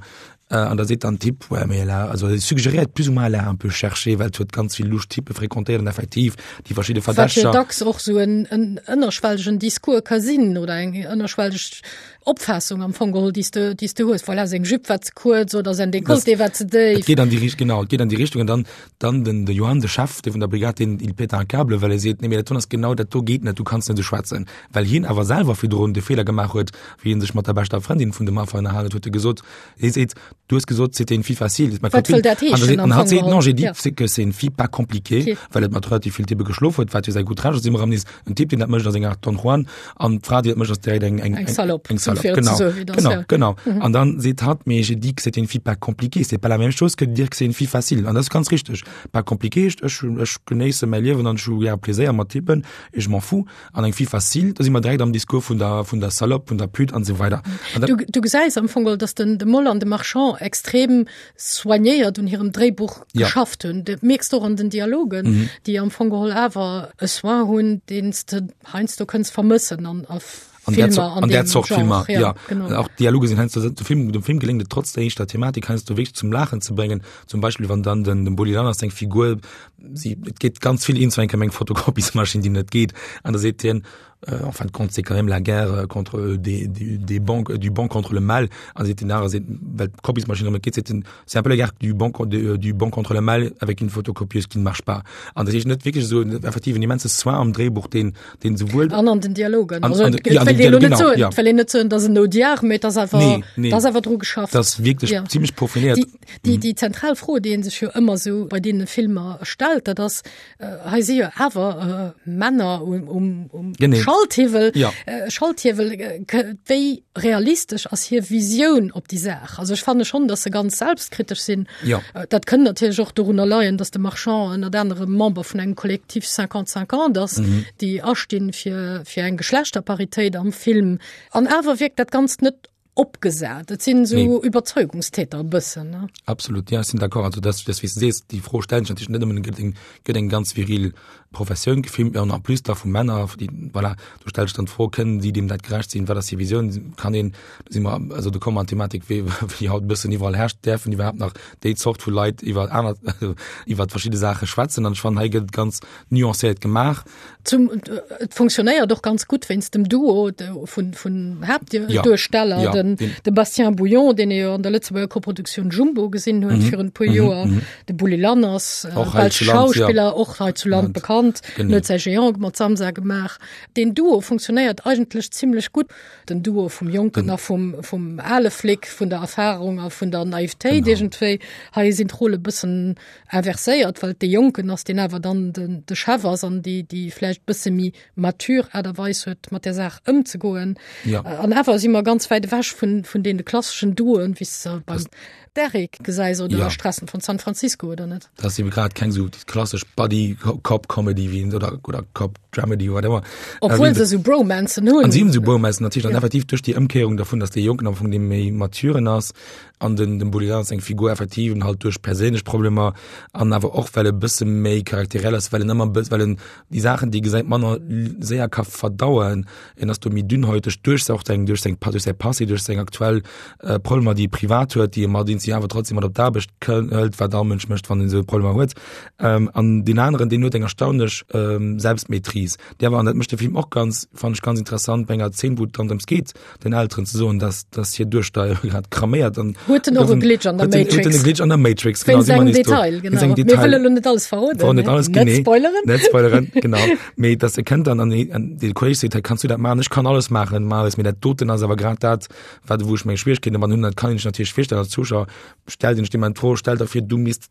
äh, an da seet dann Typ, ouais, mais elle a, also e suggeréiert plus ou moins, elle a un peu cherché, well et huet ganz vill lusch Typpe fréquentéiert an effektiv déi verschidde Wat jo dacks och sou en, en ënnerschwellegen Discours ka sinn oder eng ënnerschwelleg Opfaassung am Fong geholl, déi s de, déi s de hues. Voilà, seng Jupe war ze kuerz oder säin Dekolleté war ze déif. Et geet an déi Richt-, genau, et geet an déi Richtung. An dann, dann den, de Johann, de Chef, dee vun der Brigade, deen, il pète un câble, well e seet, nee, mee dat do ass genau, dat do geet net, du kanns net esou schwätzen. Well hien awer selwer virdrun de Feeler gemaach huet, wéi hie sech mat der beschter Frëndin vun dem Affer ënnerhalen huet, huet e gesot, hie seet, du hues gesot, c'était une fille facile, ma Wat copine. wëll dat An da heeschen seet, am an hatt Fong seet, geholl? non, j'ai dit, Ja. c'est que c'est une fille pas compliquée, Okay. well et mat relativ vill Typpe geschlof huet, wat jo säi gutt Recht ass, si mer am nees En Typ, deen dat mécht, ass eng Art Don Juan, an d'Fra, déi dat mécht, ass direkt eng, eng, Eng Salopp. Eng Salopp. Salope, genau, genau, genau. Mhm. An dann seet hatt, mais j'ai dit que c'était une fille pas compliquée, c'est pas la même chose que de dire que c'est une fille facile. An dat ass ganz richteg. Pas compliqué heescht, ech, ech genéisse mäi Liewen an ech hu gär Pleséier mat Typen, et je m'en fous. An eng fille facile, do si mer direkt am Discours vun der, vun der Salope, vun der Pute an esou weider. An dat, Du, du gesäis am Fong geholl, dass den, de Moll an de Marchand extrem soignéiert un hirem Dréibuch ja. geschafft hunn. Dat mierks du och an den Dialogen, mhm. déi am Fong geholl awer e Soin hunn, deen s de heiansdo kënns vermëssen an a an der, an, an der Zort Filmer ja, ja. Genau. auch Dialoge sind heiansdo dem Film dem Film gelingt trotz der eischter Thematik heiansdo wéi zum Lachen ze bringen zum Beispiel wann dann den dem Bulli Lanners seng Figur sie et geht ganz viel ins eng Fotokopiesmaschine die net geht an da seet hien euh, en fin de compte c'est quand même la guerre euh, contre euh, des, des, des banques du bon contre le mal an seet den aner seet well d'Kopiesmaschine net geht seet den c'est un peu la guerre du bon du, du bon contre le mal avec une photocopieuse qui ne marche pas an dat heescht net wierklech esou effektiv en immense Soin am Dréibuch deen den souwuel an an den Dialogen an, an, ja, an den Dialog, genau, ja. well een net soen dass en Audiard mee dass awer nee, nee. dass awer dru geschafft das wierklech ja. ziemlech profiliert déi, déi, mhm. déi zentral Fro déi een sech jo ëmmer sou bei deene Filmer stellt dat ass äh, hei si jo awer äh, Männer um, um, um Genee. Schalthiwwel ja. äh, Schalthiewel äh, wéi realistesch ass hir Visioun op déi Saach. Also ech fanne schon, dass se ganz selbstkritesch sinn. Ja. Äh, dat kënnt natierlech och dorunner leien, dass de Marchand ënnert anerem Member vun engem Kollektiv 50-50 ass, mhm. déi astinn fir, fir eng Geschlechterparitéit am Film. An awer wirkt dat Ganzt net opgesat. Et sinn esou nee. Überzeugungstäter e bëssen. Ne? Absolut, ja, ech sinn d'accord. Also das, das, wéi s du sees, déi Fro stellen sech natierlech net nëmmen, gëtt eng, gëtt eng ganz viril Professioun gefilmt, an en plus da vu Männer, déi, voilà, du stellst dann d'Fro, kënnen si deem dat gerecht sinn, wat ass hir Visioun, kann een, do si mer, also do komme mer an d'Thematik, wéi, wéi haut e bëssen iwwerall herrscht, däerfen iwwerhaapt nach déi Zort vu Leit iwwer aner, iwwer verschidde Saache schwätzen? An ech fannen, hei gëtt et ganz nuancéiert gemaach. Zum, et funktionéiert och ganz gutt wéinst dem Duo vun, vun Haaptduersteller, ja, ja, den, de Bastien Bouillon, deen ee jo an der Lëtzebuerger Koproduktioun Jumbo gesinn huet mhm. virun e puer mhm, Joer, mhm. de Bulli Lanners, äh, och belsch Schauspiller, ja. och hei zu Land bekannt, huet säi Géant mat Samsa gemaach. Den Duo funktionéiert eigentlech zimmlech gutt. Den Duo vum Jonken a vum, vum ale Flic, vun der Erfahrung a vun der Naivetéit iergendwéi. Hei sinn d'Rolle bëssen inverséiert, well et dee Jonken ass, deen awer dann den, de Chef ass an déi, déi vläicht bësse méi mature Aart a Weis huet, mat där Saach ëmzegoen. Ja. An awer si mer ganz wäit ewech vun, vun deene klasseschen Duoen, wéi s de beim Derrick gesäis oder ja. Stressen von San Francisco oder net. Dat ass ebe grad keng sou déi klassesch Buddy-Cop-Comedy wéi oder, oder Cop-Dramedy, whatever. Obwuel äh, se sou Bromancen hunn. An si hunn sou Bromancen natierlech, ja. an effektiv duerch déi Ëmkéierung dervun, dass dee Jonken am Fong dee méi maturen ass, an den dem Bulli Lanners seng Figur effektiv en halt duerch perséinlech Problemer an awer och well e bësse méi charakteriell ass, well en ëmmer bëss well en déi Saachen déi gesäit manner séier ka verdauen, en ass do méi dünnhäuteg duerch och seng duerch seng duerch säi Passé, duerch seng aktuell äh, Problemer déi e privat huet, déi e mat si awer trotzdem mat op d'Aarbecht hëlt, wat all Mënsch mécht wann en esou Problemer huet. Ähm, an deen aneren deen huet eng erstaunlech ähm, Selbstmaîtrise, déi awer an dat mécht de Film och ganz fannen ech ganz interessant bei enger Zeen wou et dann drëms geet, den Elteren ze soen, dass, dass hir Duechter grad kraméiert an huet en och e Glitch an der Matrix. Huet en e Glitch an der Matrix, genau. Wéinst engem Detail, genau. Wéinst engem Detail. Mir wëlle lo net alles verroden. Verroden net alles, net genee. Spoileren. Net spoileren, genau. Mee dass e kënnt dann an an de Kolleg seet, hey, kanns du dat maachen? Ech kann alles maachen, Marius, mee dat doten ass awer grad dat, wat wou ech meng Schwierigkeeten domat hunn. Dat kann een sech natierlech virstellen als Zuschauer. Stellt een sech deem d'Fro, stell der vir, du misst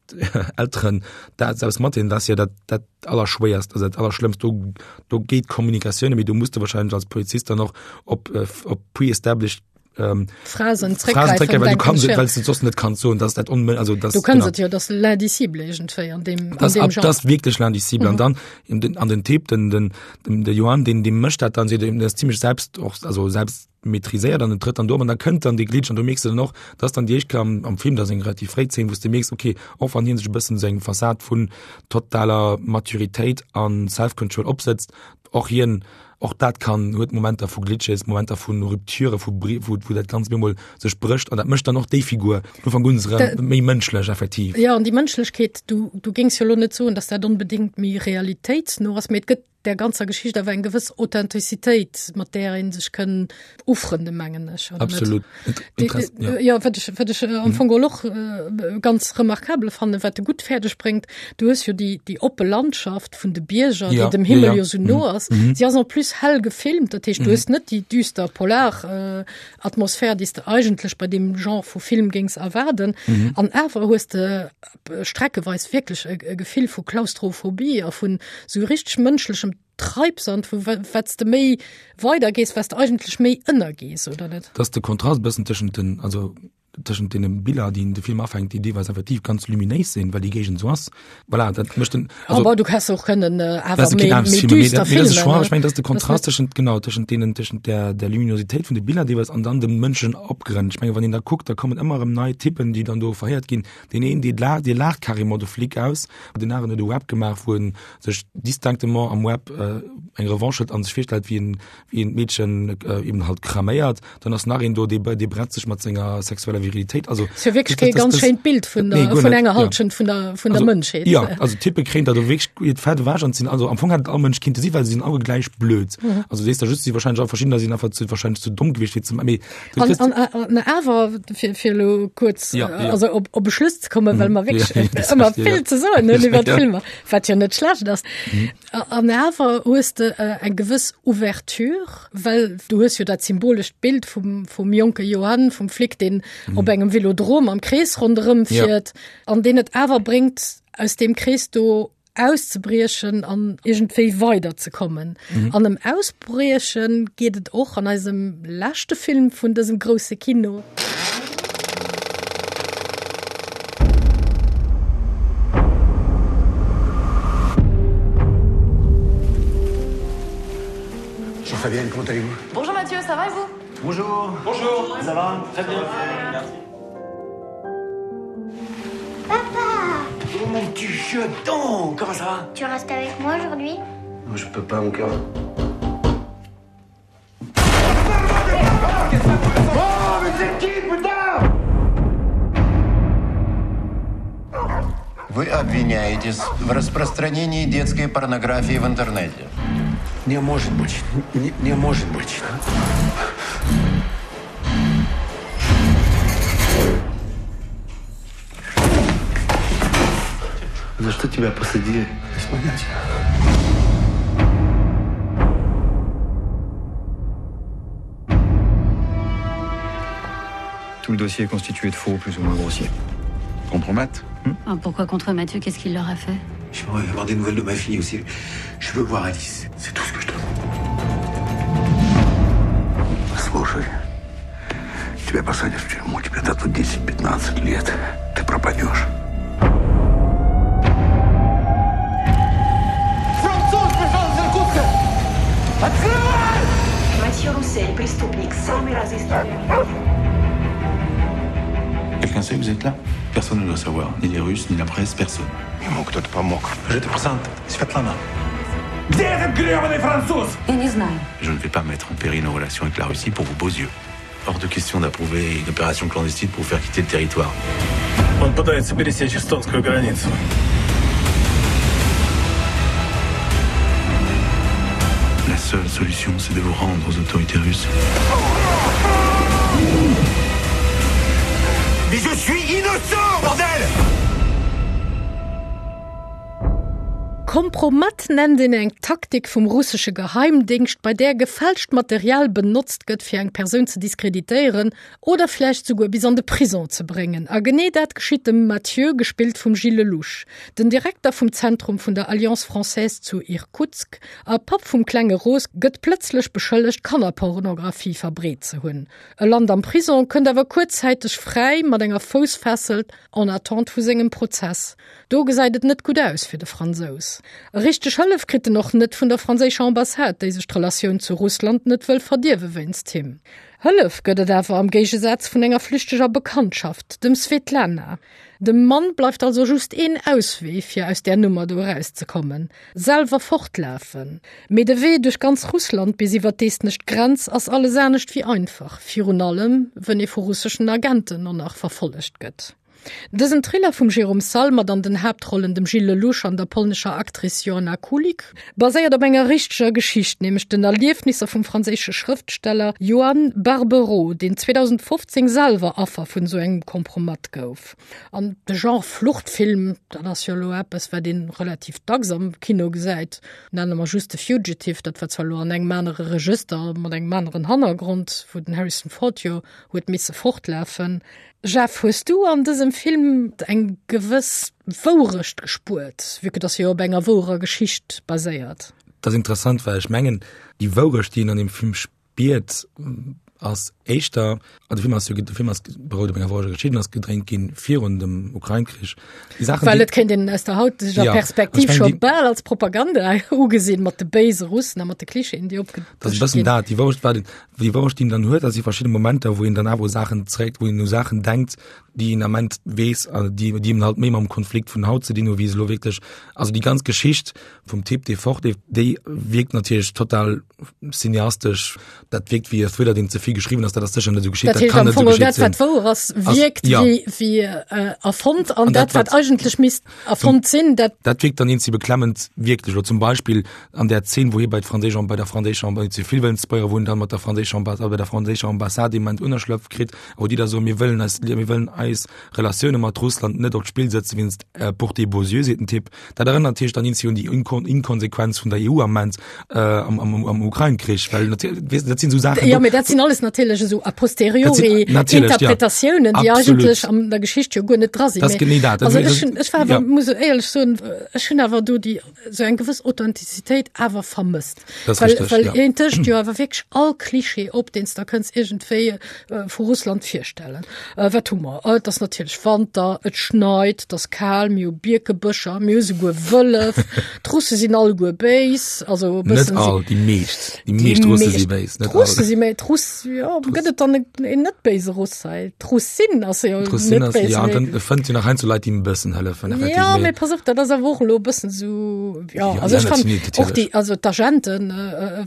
Elteren dat selbst matdeelen, dat ass jo dat, dat Allerschwéierst, also dat Allerschlëmmst. Do, do geet d'Kommunikatioun net méi. Do muss de wahrscheinlech als Polizist dann och op, äh, op pre-established ähm, Phrasen zréckgräifen, zréckgräifen, well du denken kannst, ech, ja. well du soss net kanns soen, dass dat onmö also das, Du kanns genau. et jo, das l'indicible iergendwéi an deem, an Das, deem ab, Genre. das wirklich l'indicible. Mhm. An dann in den, an den Typ, den, den, den, de Johann, den, den mécht dat dann, den ass ziemlech selbst och, also selbst maîtriséiert an en trëtt dann do op an da kënnt dann dee Glitch an du mierks dann och, dass dann déi éischt Kéier am, am Film, dat ass eng relativ fréi Zeen, wou s de mierks, okay, och wann hien sech e bëssen sou eng Fassad vun totaler Maturitéit an Self-Control opsëtzt, och hien, och dat kann, huet Momenter vu Glitches, Momenter vu Rupture, vu Bri-, wou, wou dat Ganzt op eemol sech brécht an dat mécht dann och déi Figur vun Ufank un erëm méi mënschlech effektiv. Jo, an déi Mënschlechkeet, du, du géings jo elo net soen, dass dat onbedéngt méi realitéitsno ass, mee et gëtt där ganzer Geschicht awer eng gewëss Authentizitéit, mat där ee sech kënn ufrënde mengen ech. Absolut. Ja. ja wat ech, wat ech äh, am mhm. Fong och äh, ganz remarkabel fannen, wat de gutt fäerdeg bréngt, du hues jo déi, déi oppe Landschaft vun de Bierger, ja. déi dem Himmel ja, ja. jo sou no mhm. ass. Mhm. Si ass en plus hell gefilmt, dat heescht, du mhm. hues net déi düster Polar äh, Atmosphär, déi s de eigentlech bei deem Genre vu Film géings erwaarden. Mhm. An awer hues de streckeweis wierklech e Gefill vu Klaustrophobie a vun sou richteg mënschlechem. Treibsand, wou wat s de méi weider gees, wat s de eigentlech méi ënnergees, oder net? Dass de Kontrast e bëssen tëschent den, also tëschent deene Biller, déi de Film afänkt, déi deelweis effektiv ganz luminéis sinn, well déi Géigend esou ass. Voilà, dat mécht den, also, Aber du häss och kënnen äh, awer méi, méi düster filmen. Choix, ech mengen, dat ass de Kontrast tëschent, genau, tëschent deenen, tëschent der, der Luminosität vun de Biller deelweis an dann dem Mënschen Opgrënn. Ech mengen, wann een da kuckt, da kommen ëmmer erëm nei Typen, déi dann do verhéiert ginn. Deen een, dee laacht, dee laacht carrément de Flic aus. Den aneren huet e Web gemaach, wou en sech distinctement am Web äh, eng Revanche huet an sech virstellt, wéi en, wéi en d'Meedchen äh, eben halt kraméiert. Dann ass nach een do, dee, dee bretzt sech mat senger sexueller Virilitéit. Also, Ist jo wierklech kee ganz schéint Bild vun der, nee, vun enger Halschent ja. vun der, vun der Mënschheet. Ja, also Type kréien da do wierklech hiert Fett ewech an sinn, also am Fong hätt all Mënsch kinnte si, well se sinn alle gläich blöd. Mhm. Also sees da just, si wahrscheinlech all verschiddener sinn einfach zu, wahrscheinlech zu domm gewiescht fir ze, mee An, an, an awer fir, fir lo kuerz ja, ja. also op, op e Schluss ze kommen, well mhm. mer wierklech ja, ëmmer vill ja. ze soen hunn iwwer ja. Filmer, wat jo net schlecht ass. Mhm. An awer hues de äh, eng gewëss Ouverture, well du hues jo dat symbolescht Bild vum, vum jonke Johann, vum Flic, deen mhm. op engem Velodrom am Krees ronderëm fiert, ja. an deen et awer bréngt, aus deem Krees do auszebriechen an iergendwéi weiderzekommen. Mhm. An ëm Ausbrieche geet et och an eisem leschte Film vun dësem grousse Kino. Bonjour Fabienne, comment allez-vous Bonjour Mathieu, ça va et vous Bonjour. Bonjour. Ça va Très bien. Merci. Papa Oh mon petit jeton Comment ça va Tu restes avec moi aujourd'hui Non, je peux pas, mon cœur. Oh, mais c'est qui, putain Вы обвиняетесь в распространении детской порнографии в интернете. Не может быть. Не, не может быть. За что тебя посадили? Без понятия. Tout le dossier est constitué de faux plus ou moins grossiers. Contre Matt hmm ah, Pourquoi contre Mathieu Qu'est-ce qu'il leur a fait J'aimerais avoir des nouvelles de ma fille aussi. Je veux voir Alice. C'est tout ce que je demande. Слушай, тебя посадят в тюрьму, тебе дадут 10-15 лет. Ты пропадешь. Француз пришел из Иркутска! Открывай! Матье Руссель, преступник, самый разыскиваемый. Quelqu'un sait que vous êtes là Personne ne doit savoir, ni les Russes, ni la presse, personne. Ему кто-то помог. Je te présente Svetlana. Где этот гребаный француз? Я не знаю. Je ne vais pas mettre en péril nos relations avec la Russie pour vos beaux yeux. Hors de question d'approuver une opération clandestine pour vous faire quitter le territoire. Он пытается пересечь эстонскую границу. La seule solution, c'est de vous rendre aux autorités russes. Mais je suis innocent, bordel! Kompromat nennt een eng Taktik vum russesche Geheimdéngscht, bei där gefälscht Material benotzt gëtt, fir eng Persoun ze diskreditéieren oder vläicht souguer bis an de Prison ze bréngen. A genee dat geschitt dem Mathieu, gespillt vum Gilles Lellouche, den Direkter vum Zentrum vun der Alliance Française zu Irkutsk a Papp vum klenge Rose, gëtt plëtzlech beschëllegt, Kannerpornographie verbreet ze hunn. E lant am Prison, kënnt awer kuerzzäiteg fräi mat enger Foussfessel en attente vu sengem Prozess. Do gesäit et net gutt aus fir de Fransous. Richteg Hëllef kritt en och net vun der franséischer Ambassade, déi sech d'Relatioun zu Russland net wëll verdierwe wéinst him. Hëllef gëtt et awer am Géigesaz vun enger flüchteger Bekanntschaft, dem Svetlana. Dem Mann bleift also just een Auswee, fir aus där Nummer do erauszekommen, selwer fortlafen. Mee de Wee duerch ganz Russland bis iwwer d'estnesch Grenz ass alles anescht wéi einfach, virun allem wënn ee vu russeschen Agenten och nach verfollegt gëtt. Dësen Thriller vum Jérôme Salle mat an den Haaptrollen dem Gilles Lellouche an der polnescher Actrice Joanna Kulig, baséiert op enger richteger Geschicht, nämlech den Erliefnisser vum franséische Schrëftsteller Joann Barbero, deen 2015 selwer Affer vun esou engem Kompromat gouf. An de Genre Fluchtfilm, dat ass jo elo eppes, wat ee relativ dacks am Kino gesäit. Nenne mer just The Fugitive, dat war zwar elo an engem anere Regëster, mat engem aneren Hannergrond, wou den Harrison Ford jo huet misse fortlafen. Jeff, hues du an dësem Film eng gewëss Wourecht gespuert, vue que dass e jo op enger wouerer Geschicht baséiert? Dat ass interessant, well ech mengen, déi Wourecht, déi een an deem Film spiert, ass éischter, an de Film ass jo, de Film ass berout op enger woureger Geschicht an ass gedréint ginn virun dem Ukrain-Krich. Déi Saachen, Well et kéint een aus der hauteger ja, Perspektiv scho bal als Propaganda ugesinn, mat de béise Russen a mat de Klischeeën, déi opgedëscht ginn. Dat ass e bëssen dat, déi Wourecht war, déi Wourecht, déi een dann huet, dat si verschidde Momenter, wou een dann awer u Saachen zréck, wou een u Saachen denkt, déi een Ament weess, déi, déi eben halt méi mam Konflikt vun haut ze dinn hu wéi se elo wierklech, also déi ganz Geschicht vum Typ, dee fortleeft, déi wierkt natierlech total cineastesch, dat wierkt wéi e Thriller, deen ze vill geschriwwen ass, dat ass sécher net esou geschitt, dat kann net esou geschitt sinn. Dat, wat wouer ass, wierkt wéi, wéi erfonnt an dat, wat eigentlech misst erfonnt sinn, dat. Dat wierkt dann eenzi beklemmend wierklech. Elo zum Beispill an där Zeen, wou hie bei d'franséisch, bei der franséischer, net ze vill wëllen spoileren, wou en dann mat der franséischer Ambassade, bei der franséischer Ambassade dee Moment Ënnerschlëpf kritt, wou déi da soen, mir wëllen eis, mir wëllen eis Relatioune mat Russland net op d'Spill setzen wéinst pour tes beaux yeux, seet den Typ. Dat erënnert natierlech dann eenzi un déi Inkonsequenz vun der EU am Moment am, am, am Ukrain-Krich, well weess, dat sinn esou Saachen. Jo, mee dat sinn alles natierlech esou a posteriori Interpretatiounen, déi eigentlech an der Geschicht jo guer net dra sinn. Dat ass genee dat. Also ech hunn, ech war awer, muss éierlech soen, ech hunn awer do déi esou eng gewëss Authentizitéit awer vermësst. Das well, richtig, well ja. een tëscht jo awer wierklech all Klischee op, deen s der kënns iergendwéi äh, vu Russland virstellen. Äh, wat hu mer? Äh, et ass natierlech Wanter, et schneit, et ass kal, mir hu Bierkebëscher, mir hu souguer Wëllef, d'Russe sinn alleguer béis, also e bëssen. Net all, déi meescht, déi meescht Russe si béis, net all. D'Russe si méi, d'Russ, jo, gëtt et dann een net béise Russ hei? D'Russin ass jo net béis. Ja, an dann fënnt jo nach heiansdo Leit, déi em e bëssen hëllefen, effektiv. Ja, mee pass op, dat ass awer och elo e bëssen esou, ja, also ech fand och déi, also d'Agenten,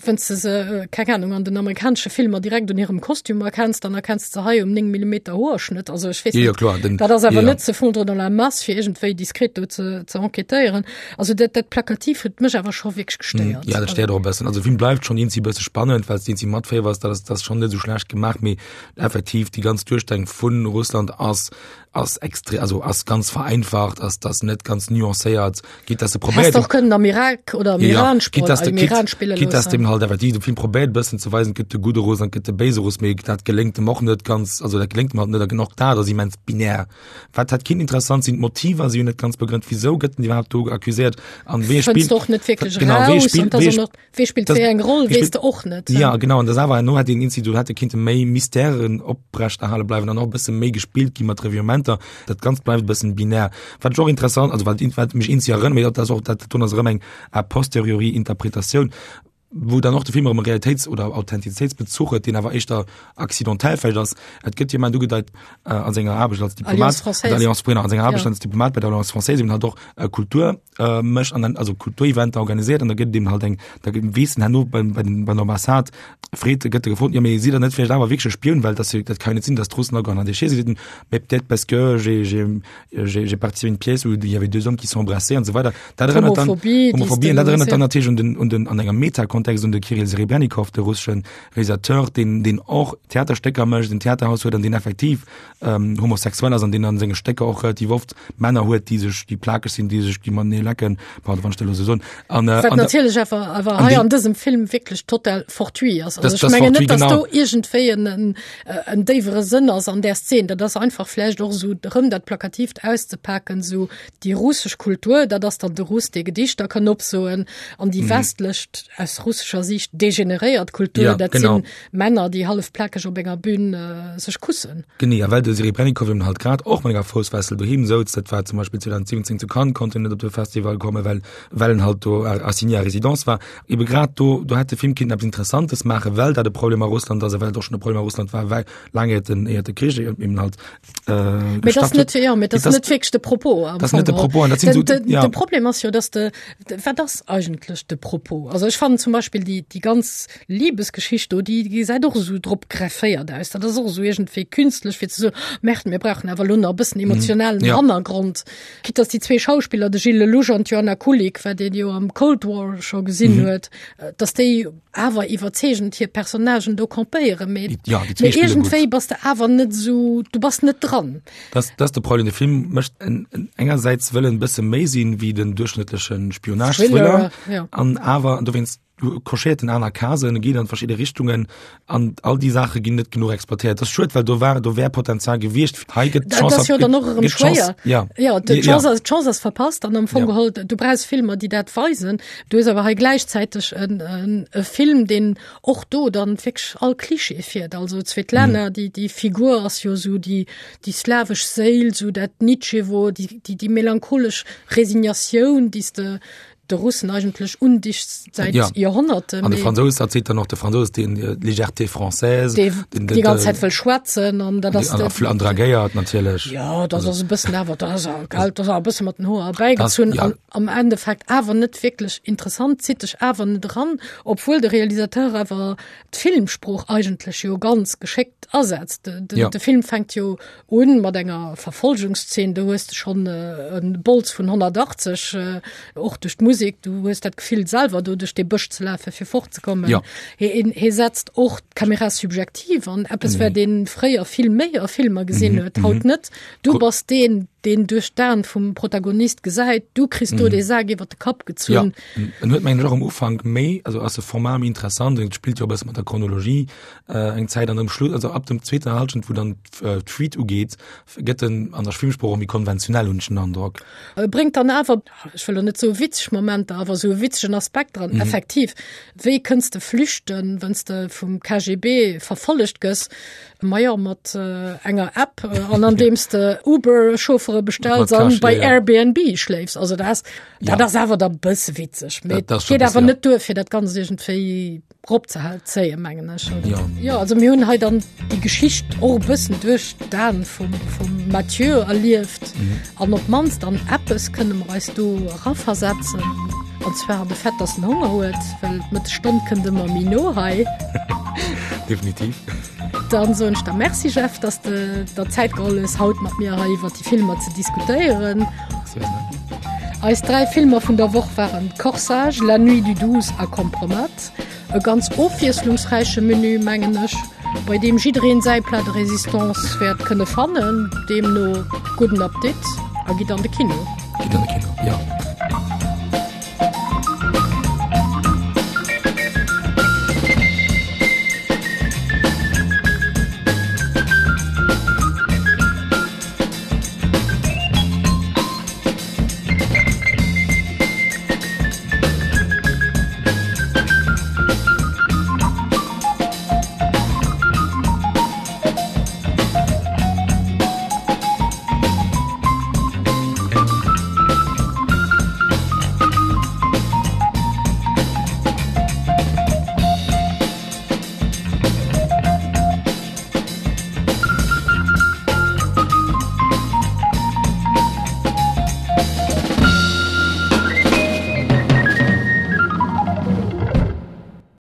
wenn's de se, keng Ahnung, an den amerikanesche Filmer direkt un hirem Kostüm erkenns, dann erkenns de se hei um 9 Millimeter Hoerschnëtt, also ech weess net, kloer, den, dat ass awer net se fondre dans la masse, fir iergendwéi diskret do ze, ze enquêtéieren. Also dat, dat Plakativ huet mech awer scho wierklech gestéiert. Ja, dat stéiert och e bëssen. Also de Film bleift schonn eenzi bësse spannend, well s de eenzi matféiwers, dat ass, dat ass schonn net esou schlecht gemaach, mee effektiv déi ganz Duerstellung vu Russland ass, ass extrem, also ass ganz vereinfacht, ass das net ganz nuancéiert, geht das probéiert och kënnen am Irak oder am Iran ja, das, im Iran spille geht das dem halt effektiv de Film probéiert bëssen ze weisen, gëtt de gudde Russ an gëtt de béise Russ, mee dat geléngt dem och net ganz, also dat geléngt dem halt net, och dat ass immens binär. Wat hat kind interessant sinn d'Motiver si net ganz begrënnt, wieso gëtt den iwwerhaupt do accuséiert an wee spillt och net wierklech genau, wee spillt, wee Wee spillt wéi eng Roll, weess de och net. Ja, genau, an das awer herno hätt een Institut hätte kinnte méi Mystèren oprechterhale bleiwen an och e bësse méi gespillt gi mat Revirementer. Dat Ganzt bleift e bëssen binär. Wat ech och interessant, also wat wat mech eenzi erënnert, mee dat ass och dat do ass erëm eng a posteriori Interpretatioun, wou dann och de Film erëm e Realitéits oder Authentizitéitsbezuch huet, deen awer éischter accidentel vläicht ass. Et gëtt jemand ugedeit äh, an senger Aarbecht als Diplomat, Alliance Française. Alliance, genau, an senger Aarbecht Ja. als Diplomat bei der Alliance Française eben halt och äh, Kultur äh, mécht an dann also Kultureventer organiséiert an da gëtt dem halt eng da gëtt weess en herno beim bei den bei der Ambassade freet gëtt e gefrot ja mee sidd der net vläicht awer wierklech e Spioun well dat dat kann jo net sinn dass d'Russen agoen an déi si mais peut-être parce que j'ai j'ai j'ai j'ai participé à une pièce où il y avait deux hommes qui s'embrassaient an esou weider dat erënnert dann Homophobie, déi s Homophobie de an dat erënnert dann ja. natierlech un den un den an engem Metakontext un de Kirill Serebrennikov de russeschen Realisateur deen deen och Theaterstécker mécht en Theaterhaus huet an deen effektiv ähm, homosexuell ass an deen an senge Stécker och relativ oft Männer huet, déi sech, déi plakeg sinn, déi sech, déi matenee lecken, pardon, wann ech dat elo esou soen. An, äh, Wat natierlech awer, awer hei an dësem Film wierklech total fortuit ass. Also ech mengen net, dass do iergendwéi en, en, äh, en déiwere Sënn ass an där Szen. Dat ass einfach vläicht och esou erëm dat Plakatiivt auszepaken, esou déi russesch Kultur, dat ass dann de Russ, dee Gedichter kann opsoen, an déi westlech, aus russescher Siicht degeneréiert Kultur, Ja, dat genau. sinn Männer, déi hallef plakeg op enger Bühn äh, sech kussen. Genee, a well de Serebrennikov eben halt grad och mat enger Foussfessel doheem souz, dat war zum Beispill 2017 zu Cannes, konnt en net op de Festival kommen, well, well en halt do assigné à résidence war. Ebe grad do, do hätt de Film kinnten eppes Interessantes maachen, well dat e Problem a Russland ass a well et och schonn e Problem a Russland war, well laang iert den, iert de Krich eben halt äh, Mee das net, ja, mee das net wierklech de Propos. Das net de Propos. An dat sinn Den, so, den, ja. de Problem ass jo, dass de, wat ass eigentlech de Propos? Also ech fannen zum Beispill déi, déi ganz Liebesgeschicht do, déi gesäit och esou drop grefféiert aus. Dat ass och esou iergendwéi künstlech fir ze soen, Merde, mir brauchen awer elo nach e bëssen emotionalen Ja. Hannergrond. Quitte dass déi zwee Schauspiller, de Gilles Lellouche an d'Joanna Kulig, wat een jo am Cold War scho gesinn huet, dass déi awer iwwerzeegend hir Personnagen do campéieren, mee Ja, déi zwee mee spille gutt. iergendwéi bass de awer net esou, du bass net dran. Das, das ist de Problem. De Film mécht en, en, engersäits wëll en bësse méi sinn wéi den duerchschnëttleche Thriller, Spionage-Thriller ja. an awer, an dowéinst. Cochéiert en aner Casen, e geet an verschidde Richtungen an all déi Saache ginn net genuch exploitéiert. Dat ass schued, well do war do wär Potenzial gewiescht. Hei gëtt Dat ass jo dann och erëm schwéier. Ja. Ja, d'Chance ass, d'Chance ass verpasst an am Fong ja. geholl, du brauchs Filmer, déi dat weisen. Du hues awer hei gläichzäiteg en, en, e Film, deen och do dann wierklech all Klischee fiert. Also d'Svetlana, mm. déi, déi Figur ass jo sou déi, déi slawesch Séil, sou dat Nitschewo, déi, déi, déi melancholesch Resignatioun, déi s de de Russen eigentlech undicht säit ja. Joerhonnerte. An de Fransous erzielt dann och de Fransous den äh, Légèreté française déi den, den, ganz Zäit wëll schwätzen an dat ass an dragéiert natierlech. Ja dat ass e bëssen awer dat ass gell dat ass e bësse mat den Hoer erbäigezunn ja. an am Endeffekt awer net wierklech interessant, zitt dech awer net eran, obwuel de Realisateur awer d'Filmsprooch eigentlech jo ganz geschéckt asetzt. De, de, ja. de Film fänkt jo Un mat enger Verfolgungszeen, do hues de schonn e Bols vun 180, och duerch d'Musek, du hues dat Gefill selwer do duerch dee Bësch ze lafen, fir fortzekommen. Ja. Hie hie setzt och d'Kamera subjektiv an, eppes wat ee fréier vill méi a Filmer gesinn huet, haut net. Du bass deen, deen duerch d'Aen vum Protagonist gesäit, du kriss do dee Sak iwwer de Kapp gezunn. Ja, en huet mengen ech och am Ufank méi, also ass de Format méi interessant, et spillt jo e bësse mat der Chronologie eng Zäit an um Schluss, also ab dem zweeter Halschent, wou dann d'Fuite ugeet, gëtt en an der Filmsprooch och méi konventionell, hunn ech den Androck. E bréngt dann awer, ech wëll elo net soe witzeg Momenter, awer esou e witzegen Aspekt dran. Effektiv, wéi kënns de flüchten, wann s de vum KGB verfollegt gëss? Majo, mat enger App an andeems de Uber-Chauffere bestells an bei Airbnb schléifs. Also dat ass, dat ass awer da bësse witzeg, mee et geet awer net duer, fir dat Ganzt iergendwéi Rop ze zéien, mengen ech. Ja. ja, also mir hunn hei dann déi Geschicht och e bëssen duerch d'Aen vum, vum Mathieu erlieft. Mhm. An op d'mannst an eppes kënne mer eis do eraversetzen. An zwar an de Fait, dass en Honger huet, well d'Mëttesstonn kënnt ëmmer méi no hei. Definitiv. Dann soen ech der Merci, Jeff, dass de der Zäit geholl hues, haut mat mir hei iwwer déi Filmer ze diskutéieren. Eis 3 Filmer vun der Woch waren Corsage, La Nuit du 12 a Kompromat. E ganz ofwiesslungsräiche Menü, mengen ech, bei deem jiddereen säi Plat de résistance wäert kënne fannen. Deemno gudden Appetit a gitt an de Kino. Gitt an de Kino, jo.